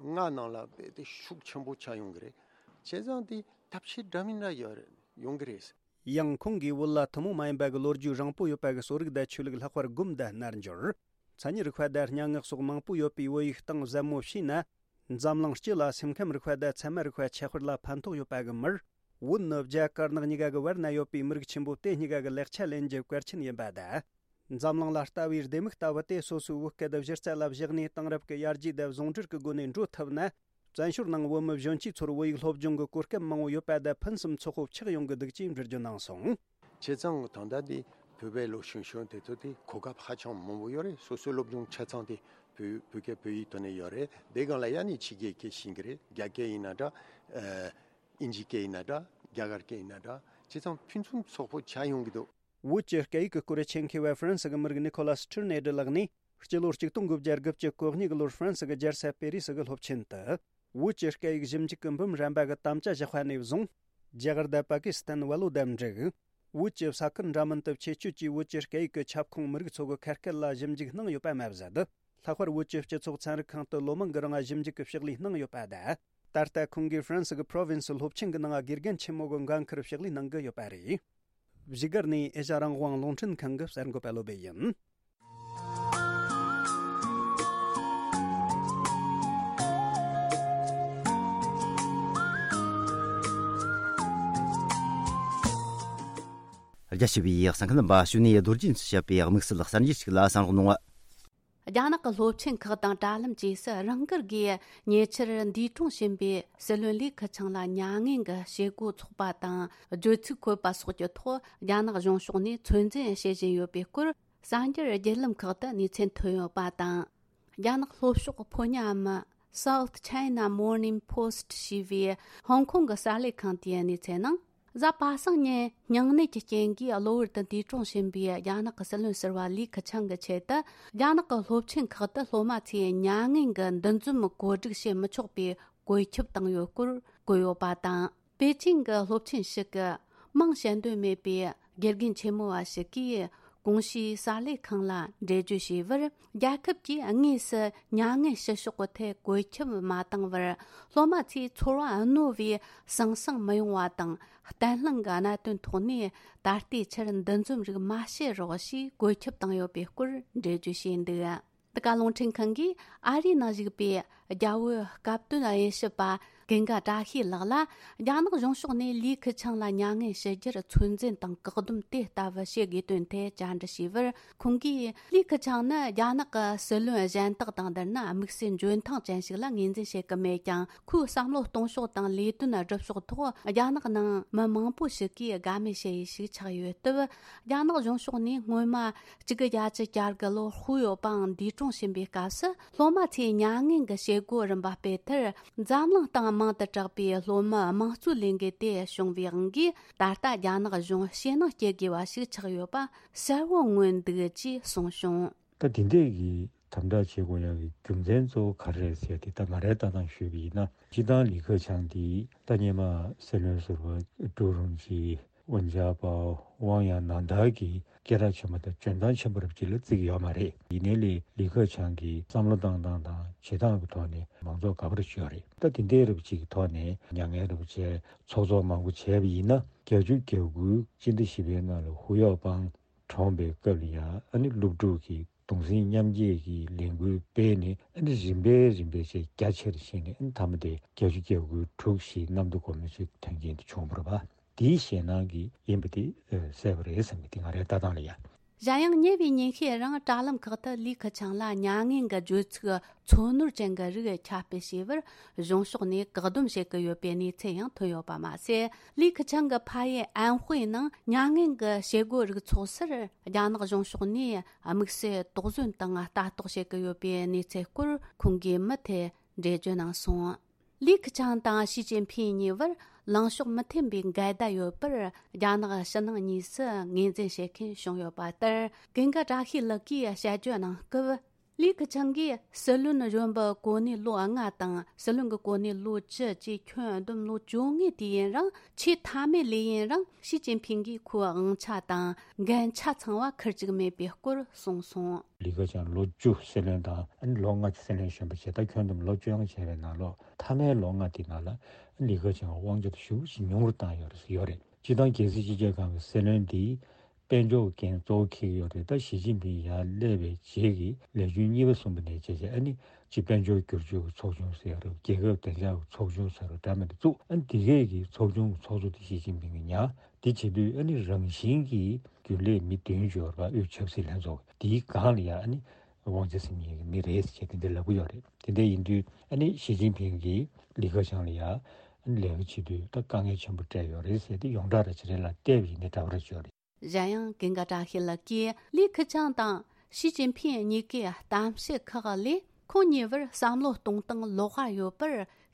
ལྔ་ནང་ལ་དཔེ་དེ་ཤུགས་ཆེན་པོ་ཆགས་ཡོང་གི་རེད། བྱས་ཙང་དེ་ཐབས་ཤེས་འདྲ་མིན་འདྲ་ཡོད་རེད། ཡོང་གི་རེད། ཡང་ཁོང་གིས་བོད་ལ་ཐུན་མོང་མ་ཡིན་པ་གི་ལོ་རྒྱུས་རིང་པོ་ཡོད་པ་གི་གསོ་རིག་དང་ཆོས་ལུགས། ལྷག་པར་སྒོམ་དང་རྣལ་འབྱོར། མཚན་ཉིད་རིག་པ་དང་སྙན་ངག་སོགས་མང་པོ་ཡོད་པའི་བོད་ཡིག་སྟེང་ཟབ་མོ་ཕྱེས་ན། འཛམ་གླིང་སྤྱི་ལ་སེམས་ཁམས་རིག་པ་དང་ཚད་མ་རིག་པ་ཁྱད་པར་ལ་ཕན་ཐོགས་ཡོད་པ་གི་མིར། བོད་ནི་རྒྱ་དཀར་ནག་གཉིས་ཀ་གི་བར་ན་ཡོད་པའི་མི་རིགས་ཆེན་པོ་དེ་གཉིས་ཀ་གི་ལེགས་ཆ་ལེན་རྒྱུ་གལ་ཆེན་ཡིན་པ་དང་། འཛམ་གླིང་ལ་ལྟ་བའི་ལྡེ་མིག་ལྟ་བུ་དེ་སོ་སོའི་བོད་སྐད་དང་སྒྱུ་རྩལ་ལ་བཞག་ནས། དེང་རབས་ཀྱི་ཡར་རྒྱས་དང་ཟུང་འབྲེལ་གྱི་སྒོ་ནས་འགྲོ་ཐུབ་ན། བཙན་བྱོལ་ནང་བོད་མི་གཞོན་སྐྱེས་ཚོར་བོད་ཡིག་སློབ་སྦྱོང་གི་གོ་སྐབས་མང་བོ་ཡོད་པ་དང་ཕུན་སུམ་ཚོགས་པོ་ཆགས་ཡོང་གི་འདུག་ཅེས་འགྲེལ་བརྗོད་གནང་སོང་། བྱས་ཙང་ད་ལྟ་འདི་ བོད་པའི་ལོ་གཞོན་གཞོན་དེ་ཚོ་དེ་གོ་སྐབས་ཧ་ཅང་མང་པོ་ཡོད་རེད། སོ་སོའི་སློབ་སྦྱོང་ཆ་ཚང་དེ་བོད་བོད་སྐད་བོད་ཡིག་ཐོག་ནས་ཡོད་རེད། དེ་སྒང་ལ་ཡང་ནི་ཕྱི་རྒྱལ་སྐད་ཤེས་ཀྱི་རེད། རྒྱ་སྐད་ཡིན་ན་འདྲ། ཨ། དབྱིན་ཇི་སྐད་ཡིན་ན་འདྲ། རྒྱ་གར་སྐད་ཡིན་ན་འདྲ། བྱས་ཙང་ཕུན་སུམ་ཚོགས་པོ་ཆགས་ཡོང་གི་འདུག། བོད་ཀྱི་སྐད་ཡིག་གི་སྐོར་ཆེད་མཁས་པ་ཧྥ་རན་སི་གི་མི་རིགས་ནི་ཁོ་ལ་སི་ཁྲིར་ནེ་ཌི་ལགས་ནས། སྤྱི་ལོ་གཅིག་སྟོང་དགུ་བརྒྱ་དགུ་བཅུ་གོ་གཉིས་ཀྱི་ལོར་ཧྥ་རན་སི་གི་རྒྱལ་ས་པེ་རི་སི་གི་སློབ་ཆེན་དུ། བོད་ཀྱི་སྐད་ཡིག་ཞིབ་འཇུག་གི་འབུམ་རམས་པ་གི་དམ་བཅའ་བཞག་པ་ནས་བཟུང་། རྒྱ་གར་དང་པ་ཀི་སི་ཐན་བལ་ལོ་དང་འབྲུག། བོད་ཀྱི་ས་ཁུལ་འདྲ་མིན་དུ་ཆེད་སྤྱོད་ཀྱིས་བོད་ཀྱི་སྐད་ཡིག་གི་ཁྱབ་ཁོངས་མི་རིགས་ཚོ་གི་ཁ་སྐད་ལ་ཞིབ་འཇུག་གནང་ཡོད་པ་མ་ཟད། ལྷག་པར་བོད་ཀྱི་སྤྱི་ཚོགས་ཚན་རིག་ཁང་དུ་ལོ་མང་གི་རིང་ཞིབ་འཇུག་གི་ཕྱག་ལས་གནང་ཡོད་པ་དང་། ད་ལྟ་ཁོང་གིས་ཧྥ་རན་སི་གི་པྲོ་ཝིན་སི་སློབ་ཆེན་གྱི་ནང་དགེ་རྒན་ཆེན་མོ་གི་འགན་འཁུར་ཕྱག་ལས་གནང་གི་ཡོད་པ་རེད། བཞུགས་སྒར་ནས་ཨེ་ཤ་རང་དབང་རླུང་འཕྲིན་ཁང་གི་གསར་འགོད་པ་བློ་བྷེ་ཡིན། རྒྱ་ཆེ་བའི་གསན་མཁན་རྣམ་པ། གཞུག་ནས་རྡོ་རྗེ་འཚོ་བྱ་བའི་དམིགས་བསལ་གསར་འགྱུར་ཞིག་ལ་གསན་རོགས་གནང་། རྒྱ་ནག་གི་སློབ་ཆེན་ཁག་དང་དྲ་ལམ་བཅས་སུ་རང་འགུལ་སྒོས་ཉེ་ཆར་འདས་གྲོངས་ཕྱིན་པའི་སྲིད་བློན་ལི་ཁེ་ཆང་ལ་མྱ་ངན་གྱི་བྱེད་སྒོ་འཚོགས་པ་དང་བརྗོད་ཚིག་འཁོད་པ་སོགས་ཀྱི་ཐོག་རྒྱ་ནག་གཞུང་ཕྱོགས་ནས་ཚོད་འཛིན་བྱེད་བཞིན་ཡོད་པའི་སྐོར། གསར་འགྱུར་བརྒྱུད་ལམ་ཁག་ཏུ་གནས་ཚུལ་ཐོན་ཡོད་པ་དང་། རྒྱ་ནག་ལྷོ་ཕྱོགས་ཕོ་ཉ་མི་South China Morning Post ཞེས་པའི་ཧོང་ཀོང་གི་གསར་ལས་ཁང་དེའི་གནས་ཚུལ་ནང་། གཟའ་པ་སངས་ཉིན་སྙིང་ནད་ཀྱི་རྐྱེན་གྱིས་གློ་བུར་དུ་འདས་གྲོངས་ཕྱིན་པའི་རྒྱ་ནག་གི་སྲིད་བློན་ཟུར་པ་ལི་ཁེ་ཆང་གི་ཆེད་དུ། རྒྱ་ནག་གི་སློབ་ཆེན་ཁག་ཏུ་སློབ་མ་ཚོས་མྱ་ངན་གྱི་འདུ་འཛོམས་གོ་སྒྲིག་བྱེད་མི་ཆོག་པའི་བཀོད་ཁྱབ་བཏང་ཡོད་སྐོར་བཀོད་ཡོད་པ་དང་། པེ་ཅིང་གི་སློབ་ཆེན་ཞིག་གི་མིང་བཤད་འདོད་མེད་པའི་དགེ་རྒན་ཆེན་མོ་བ་ཞིག་གིས། གོང་ཞུས་གསར་ལས་ཁང་ལ་འགྲེལ་བརྗོད་བྱས་པར། རྒྱལ་ཁབ་ཀྱིས་དངོས་སུ་མྱ་ངན་བྱེད་ཕྱོགས་ཀྱི་ཐད་བཀོད་ཁྱབ་མ་བཏང་བར། སློབ་མ་ཚོས་ཚོར་བ་རྣོ་བའི་ཟང་ཟིང་མི་ཡོང་བ་དང་། བརྟན་ལྷིང་གི་གནད་དོན་ཐོག་ནས་ད་ལྟའི་ཆར་འདུ་འཛོམས་རིགས་མ་བྱེད་རོགས་ཞེས་བཀོད་ཁྱབ་བཏང་ཡོད་པའི་སྐོར་འགྲེལ་བརྗོད་བྱས་འདུག། འདི་ག་རླུང་འཕྲིན་ཁང་གིས་ཨ་རིའི་ནང་བཞུགས་པའི་རྒྱ་བོད་སྐབས་དོན་དབྱེ་ཞིབ་པ་ཀུན་དགའ་བཀྲ་ཤིས་ལགས་ལ། རྒྱ་ནག་གཞུང་ཕྱོགས་ནས་ལི་ཁེ་ཆང་ལ་མྱ་ངན་ཞུ་རྒྱུར་ཚོད་འཛིན་དང་བཀག་སྡོམ་དེ་ལྟ་བུ་བྱེད་དགོས་དོན་ཐད་བཅར་འདྲི་བྱས་པར། ཁོང་གིས། ལི་ཁེ་ཆང་ནི་རྒྱ་ནག་གི་སྲིད་བློན་གཞན་དག་དང་བསྡུར་ན་དམིགས་བསལ་འཇོན་ཐང་ཅན་ཞིག་ལ་ངོས་འཛིན་བྱེད་ཀྱི་མེད་ཀྱང་། ཁོའི་བསམ་བློ་གཏོང་ཕྱོགས་དང་ལས་དོན་སྒྲུབ་ཕྱོགས་ཐོག་རྒྱ་ནག་ནང་མི་མང་པོ་ཞིག་གིས་དགའ་མོས་བྱེད་ཡུལ་ཞིག་ཆགས་ཡོད་སྟབས། རྒྱ་ནག་གཞུང་ཕྱོགས་ནས་སྔོན་མ་གཅིག་དགུ་བརྒྱད་ཅུ་གྱ་དགུ་ལོར་ཧུའུ་ཡའོ་པང་འདས་གྲོངས་ཕྱིན་པའི་སྐབས་སུ། སློབ་མ་ཚོས་མྱ་ངན་གྱི་བྱེད་སྒོ་རིམ་པ་སྤེལ་མཐར། འཛམ་གླིང་སྟེང་མང་དུ་གྲགས་པའི་སློབ་མའི་དམངས་གཙོའི་ལས་འགུལ་དེ་བྱུང་བའི་དབང་གིས། ད་ལྟ་རྒྱ་ནག་གཞུང་ཞེད་སྣང་སྐྱེ་དགོས་པ་ཞིག་ཆགས་ཡོད་པ་གསལ་བོ་མངོན་འདུག་ཅེས་གསུངས་བྱུང་། ད་དེ་འདྲས་ཀྱི་དམ་དྲག་བྱེད་དགོས་ཡག་གི་རྒྱུ་མཚན་གཙོ་བོ་ག་རེ་རེད་ཟེར་ཏེ། ད་ང་རའི་ལྟ་སྟངས་ཞུས་པ་ཡིན་ན། སྤྱིར་བཏང་ལི་ཁེ་ཆང་འདི་ད་སྔོན་མ་སྲིད་བློན་ཟུར་པ་ཀྲུའུ་རུང་ཅི། ཝུན་ཅཱ་པའོ། ཝང་ཡང་ནན་ཐར་གྱི་སྐད་གྲགས་ཆེན་པོ་དང་འཇོན་ཐང་ཆེན་པོ་རབ་ཅིག་ལ་བརྩི་གི་ཡོད་མ་རེད། ཡིན་ནའི་ལི་ལི་ཁེ་ཆང་གི་བསམ་བློ་བཏང་སྟངས་དང་བྱེད་སྟངས་ཀྱི་ཐོག་ནས་མང་ཚོགས་དགའ་པོ་རེ་ཞིག་ཡོད་རེད། ད་དེ་འདྲའི་རབ་ཅིག་གི་ཐོག་ནས་མྱ་ངན་རབ་བྱས་ཚོགས་གཙོ་མང་པོ་བྱས་པ་ཡིན་ན། བརྒྱད་ཅུ་གྱ་དགུའི་སྤྱི་ཟླ་བཞི་པའི་ནང་ལ་ཧུའུ་ཡའོ་པང་གྲོངས་པའི་སྐབས་ལ་ཡང་། ཨ་ནི་སློབ་ཕྲུག་གིས་གདུང་སེམས་མཉམ་སྐྱེད་ཀྱི་ལས་འགུལ་སྤེལ་ནས། ཨ་ནི་རིམ་པས་རིམ་པས་བྱས་རྒྱ་ཆེར་ཕྱིན་ནས། ཨ་ནི་མཐའ་མ་དེ་བརྒྱད་ཅུ་གྱ་དགུ་དྲུག་ཞེས་གནམ་བདེ་སྒོ་མོ་ཆེའི་དོན་རྐྱེན་དེ་བྱུང་བ་རེད་པ། དེའི་ཞེད་སྣང་གིས་ཡིན་པ་དེ་གསལ་པོ་རེད་བསམ་གི། དེ་ང་རའི་ལྟ་སྟངས་ལ་ཡ། གཞན་ཡང་ཉེ་བའི་ཉིན་ཤས་རིང་དྲ་ལམ་ཁག་ཏུ་ལི་ཁེ་ཆང་ལ་མྱ་ངན་གྱི་བརྗོད་ཚིག་ཚོ་ནོར་ཅན་གྱི་རིགས་ཁྱབ་སྤེལ་བྱས་པར། གཞུང་ཕྱོགས་ནས་བཀག་སྡོམ་བྱེད་ཀྱི་ཡོད་པའི་གནས་ཚུལ་ཡང་ཐོན་ཡོད་པ་མ་ཟད། ལི་ཁེ་ཆང་གི་ཕ་ཡུལ་ཨན་ཧུའེ་ནང་མྱ་ངན་གྱི་བྱེད་སྒོ་རིགས་ཚོགས་སར། རྒྱ་ནག་གཞུང་ཕྱོགས་ནས་དམིགས་བསལ་དོགས་ཟོན་དང་ལྟ་རྟོག་བྱེད་ཀྱི་ཡོད་པའི་གནས་ཚུལ་སྐོར་ཁོང་གིས་མུ་མཐུད་འགྲེལ་བརྗོད་གནང་སོང་། ལི་ཁེ་ཆང་དང་ཞི་ཅིན་ཕིང་གཉིས་བར་ལངས་ཕྱོགས་མི་མཐུན་པའི་འགལ་ཟླ་ཡོད་པར། རྒྱ་ནག་ཕྱི་ནང་གཉིས་སུ་ངོས་འཛིན་བྱེད་མཁན་བྱུང་ཡོད་པ་ལྟར། ཀུན་དགའ་བཀྲ་ཤིས་ལགས་ཀྱིས་དཔྱད་བརྗོད་གནང་སྐབས། ལི་ཁེ་ཆང་གིས་སྲིད་བློན་གཞོན་པའི་གོ་གནས་ལོ་ལྔ་དང་། སྲིད་བློན་གྱི་གོ་གནས་ལོ་བཅུ་བཅས་ཁྱོན་བསྡོམས་ལོ་བཅོ་ལྔའི་དུས་ཡུན་རིང་། ཆེས་མཐའ་མའི་ལས་ཡུན་རིང་ཞི་ཅིན་ཕིང་གིས་ཁོའི་དབང་ཆ་དང་འགན་ཆ་ཚང་བ་ཁུར་བཅུག་མེད་པའི་སྐོར་གསུངས་སོང་། ལི་ཁེ་ཆང་ལོ་བཅུ་སྲིད་བློན་དང་། ཨ་ནི་ལོ་ལྔ་ཅིག་སྲིད་བློན་གཞོན་པ་བྱས། ད་ཁྱོན་བསྡོམས་ལོ་བཅོ་ལྔ་བྱས་པའི་ནང་ལོགས། མཐའ་མའི་ལོ་ལྔ་དེའི་ནང་ལ་ལི་ཁེ་ཆང་དབང་ཆ་དེ་ཞེ་པོ་ཅིག་ཉུང་རུ་བཏང་ཡོད་རེད་ཟེར་ཡོད་རེད། སྤྱིར་བཏང་རྒྱལ་སྲིད་སྤྱི་ཁྱབ་ཁང་གི་སྲིད་བློན་འདི་དཔལ་འབྱོར་འགན་གཙོ་བོ་འཁྱེར་གྱི་ཡོད་རེད། ད་ཞི་ཅིན་ཕིང་ཡར་སླེབས་པའི་རྗེས་ཀྱི་ལས་རྒྱུན་གཉིས་པ་གསུམ་པ་ནས་བྱས་བྱས། ཨ་ནི་སྤྱི་དཔལ་འབྱོར་བསྒྱུར་བཅོས་ཀྱི་ཚོགས་ཆུང་ཟེར་ཡ་རེད། རྒྱལ་ཁབ་བདེ་འཇགས་ཀྱི་ཚོགས་ཆུང་ཟེར་བ་འདྲ་མི་འདྲ་བཙུགས། ཨ་ནི་འདི་གས་ཀྱི་ཚོགས་ཆུང་གི་ཚོགས་གཙོ་དེ་ཞི་ཅིན་ཕིང་གིས་ཉར། དེ་བྱེད་དུས་ཨ་ནི་རང་བཞིན་གྱིས་རྒྱུན་ལས་མི་བདུན་ཅིག་ཡོད་རེད་པ། དབུས་ཆབ་སྲིད་ལྷན་ཚོགས་དེའི་སྒང་ལ་ཡ། ཨ་ནི་དབང་ཆ་ཟིན་མཁན་གྱི་མི་རེད་ཟེར་བྱས་དེ་འདྲ་ལབ་ཀྱི་ཡོད་རེད། དེ་འདྲ་ཡིན་དུས་ཨ་ནི་ཞི་ཅིན་ཕིང་གིས་ལི་ཁེ་ཆང་ལ་ཡ། ཨ་ནི་ལས་ཀ་བྱེད་དུས་ད་དཀའ་ངལ་ཆེན་པོ་འཕྲད་ཡོད་རེད་ཟེར་ཏེ། ཡོངས་གྲགས་ར་ཅིག་རེད་ལ་བལྟས་པ་ཡིན་ན་འདྲ་པོ་ར་ཅིག་ཡོད་རེད། གཞན་ཡང་ཀུན་དགའ་བཀྲ་ཤིས་ལགས་ཀྱིས་ལི་ཁི་ཆང་དང་ཞི་ཅིན་ཕིང་གཉིས་ཀའི་གཏམ་བཤད་ཁག་ལས་ཁོང་གཉིས་བར་བསམ་བློ་གཏོང་སྟངས་ལོགས་ཀ་ཡོད་པར་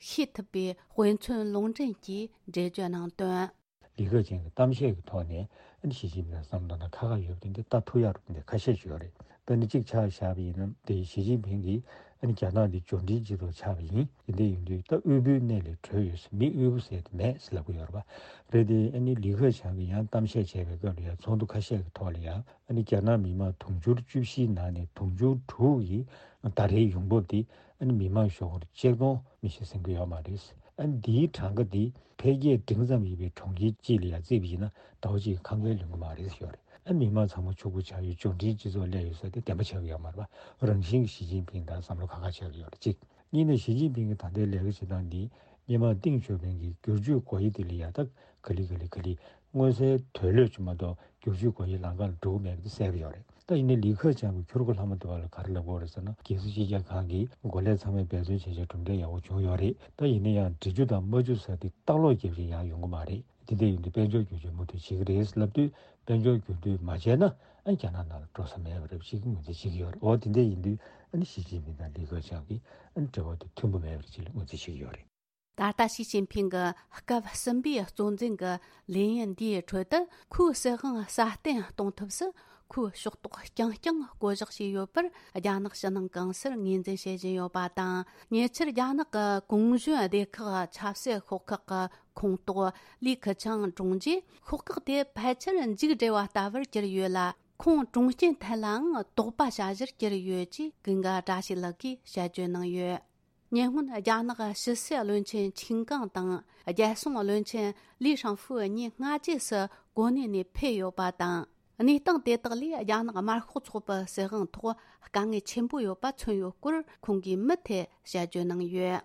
ཤེས་ཐུབ་པའི་དཔེ་མཚོན་ལུང་འདྲེན་གྱིས་འགྲེལ་བརྗོད་གནང་དོན། ལི་ཁེ་ཆང་གི་གཏམ་བཤད་ཀྱི་ཐོག་ནས་ཨ་ནི་ཞི་ཅིན་ཕིང་ལ་བསམ་བློ་དང་ཁ་ཁ་ཡོད་པ་དེ་འདྲ་ལྟ་ཐུབ་ཡག་རུ་དེ་འདྲ་ཁ་ཤས་ཤིག་ཡོད་རེད། ད་ནི་གཅིག་ཆ་བཞག་པ་ཡིན་ན་དེ་ཞི་ཅིན་ཕིང་གིས་ཨ་ནི་རྒྱ་ནག་འདི་འབྱོར་འབྲིང་སྤྱི་ཚོགས་ཆགས་པ་ཡིན། དེ་འདྲ་ཡིན་དུས་ད་དབུལ་པོའི་གནས་ལས་གྲོལ་ཡོད་ཟེར། མི་དབུལ་པོ་ཟེར་དེ་མེད་ཟེར་ལབ་ཀྱི་ཡོད་རེད་པ། རེད་དེ་ཨ་ནི་ལི་ཁེ་ཆང་གིས་ཡང་གཏམ་བཤད་བྱས་པའི་སྐབས་ལ་ཡང་ཚོགས་འདུ་ཁ་ཤས་ཀྱི་ཐོག་ལ་ཡང་ཨ་ནི་རྒྱ་ནག་མི་མང་དུང་ཕྱུར་བཅུ་བཞིའི་ནང་ནས་དུང་ཕྱུར་དྲུག་གི་ཟླ་རེའི་ཡོང་འབབ་དེ་ཨ་ནི་མི་མང་ཞོགས་ཀར་ཆིག་སྟོང་མི་ཤི་ཟིན་གྱི་ཡོད་མ་རེད། ཨ་ནི་འདིའི་གྲངས་ཀ་འདི་འཕེལ་རྒྱས་འབྲིང་ཙམ་ཡིན་པའི་གྲོང་ཁྱེར་གཅིག་ལ་ཡང་བརྩིས་པ་ཡིན་ན་ཟླ་བ་གཅིག་གི་ཁང་པའི་ལོན་གྱི་མ་རེད་ཞུ་བ་རེད། ཨ་ནི་མི་མང་ཚང་མ་ཕྱུག་པོ་ཆགས་ཡོད། འབྱོར་འབྲིང་སྤྱི་ཚོགས་སླེབས་ཡོད་ཟེར་དེ་བདེན་པ་ཆགས་ཀྱི་ཡོད་མ་རེད་པ། རང་བཞིན་གྱིས་ཞི་ཅིན་ཕིང་དང་བསམ་བློ་ཁ་ཁ་ཆགས་ཀྱི་ཡོད་རེད་གཅིག་གཉིས་ནས་ཞི་ཅིན་ཕིང་གི་ད་ལྟའི་ལས་ཀ་བྱེད་སྟངས་འདི་སྔོན་མ་ཏིང་ཞའོ་ཕིང་གིས་བསྒྱུར་བཅོས་སྒོ་དབྱེ་དེ་ལ་ཡང་ད་ག་ལེ་ག་ལེ་ག་ལེ་མངོན་གསལ་དོད་ལོས་ཀྱི་མ་གཏོགས་བསྒྱུར་བཅོས་སྒོ་དབྱེ་ལམ་ཁ་ལ་འགྲོ་གི་མེད་པ་དེ་གསལ་པོ་ཡོད་རེད། ད་ཡིན་ནའི་ལི་ཁེ་ཆང་གི་ཁྱུ་རུ་ཁ་ལྷག་མ་དེ་བ་ལ་ག་རེ་ལབ་དགོས་རེད་ཟེར་ན། རྒྱལ་སྲིད་སྤྱི་ཁྱབ་ཁང་གིས་འགོ་ལས་ཚང་མས་འབད་བརྩོན་བྱས་བྱས་གྲུབ་འབྲས་ཡག་པོ་བྱུང་ཡོད་རེད། ད་ཡིན་ན་ཡང་འབྲི་རྒྱུ་དང་མ་རྒྱུ་ཟེར་དེ་ལྟག་ལོག་རྒྱབ་བྱས་ཡག་ཡོང་གི་མ་རེད། དེ་འདྲ་ཡིན་དུས་དཔལ་འབྱོར་འགྱུར་བཅོས་མུ་མཐུད་བྱེད་ཀྱི་རེད་ལབ་དུས་དཔལ་འབྱོར་འགྱུར་མདུན་མ་བྱས་ན་ཨ་རྒྱ་ནག་ནང་ལ་འགྲོ་ས་མེད་པ་རེད་ཅེས་ཀྱི་ངོས་འཛིན་བྱེད་ཀྱི་ཡོད་རེད། འོ་དེ་འདྲ་ཡིན་དུས་ཨ་ནི་ཞི་ཅིན་ཕིང་དང་ལི་ཁེ་ཆང་གི་ཨ་ནི་འབྲེལ་བ་དེ་མཐུན་པོ་མེད་པ་རེད་ཅེས་ལ་ངོས་འཛིན་བྱེད་ཀྱི་ཡོད་རེད། ད་ལྟ་ཞི་ཅིན་ཕིང་གི་སྐབས་གསུམ་པའི་གཙོ་འཛིན་གྱི་ལས་ཡུན་འདིའི་ཁྲོད་དུ་ཁོའི་སྲིད་དབང་སྲ་བརྟན་གཏོང་ཐབས་སུ་ཁོས་ཕྱོགས་གཏོགས་རྐྱང་རྐྱང་བསྐོ་གཞག་བྱས་ཡོད་པར་རྒྱ་ནག་ཕྱི་ནང་གང་སར་ངོས་འཛིན་བྱེད་བཞིན་ཡོད་པ་དང་། ཉེ་ཆར་རྒྱ་ནག་གི་གུང་གཞོན་སྡེ་ཁག་ཆབ་སྲིད་ཤོག་ཁག་གི་ཁོངས་གཏོགས་ལི་ཁེ་ཆང་བཀྲོངས་རྗེས། ཤོག་ཁག་དེ་ཕལ་ཆེར་མཇུག་བསྒྲིལ་བ་ལྟ་བུར་གྱུར་ཡོད་ལ། ཁོང་བཀྲོངས་རྐྱེན་ཐད་ལའང་དོགས་པ་བྱ་གཞིར་གྱུར་ཡོད་ཅེས་ཀུན་དགའ་བཀྲ་ཤིས་ལགས་ཀྱིས་དཔྱད་བརྗོད་གནང་ཡོད། ཉེ་སྔོན་རྒྱ་ནག་ཕྱི་སྲིད་བློན་ཆེན་ཆིན་ཀང་དང་རྒྱལ་སྲུང་བློན་ཆེན་ལི་ཧྲང་ཧྥུའུ་གཉིས་སྔ་རྗེས་སུ་གོ་གནས་ནས་ཕེབས་ཡོད་པ་དང་། གནས་སྟངས་དེ་དག་ལས་རྒྱ་ནག་དམར་ཤོག་ཚོགས་པའི་སྲིད་དབང་ཐོག་དཀའ་ངལ་ཆེན་པོ་ཡོད་པ་མཚོན་ཡོད་སྐོར་ཁོང་གིས་མུ་མཐུད་དཔྱད་བརྗོད་གནང་ཡོད།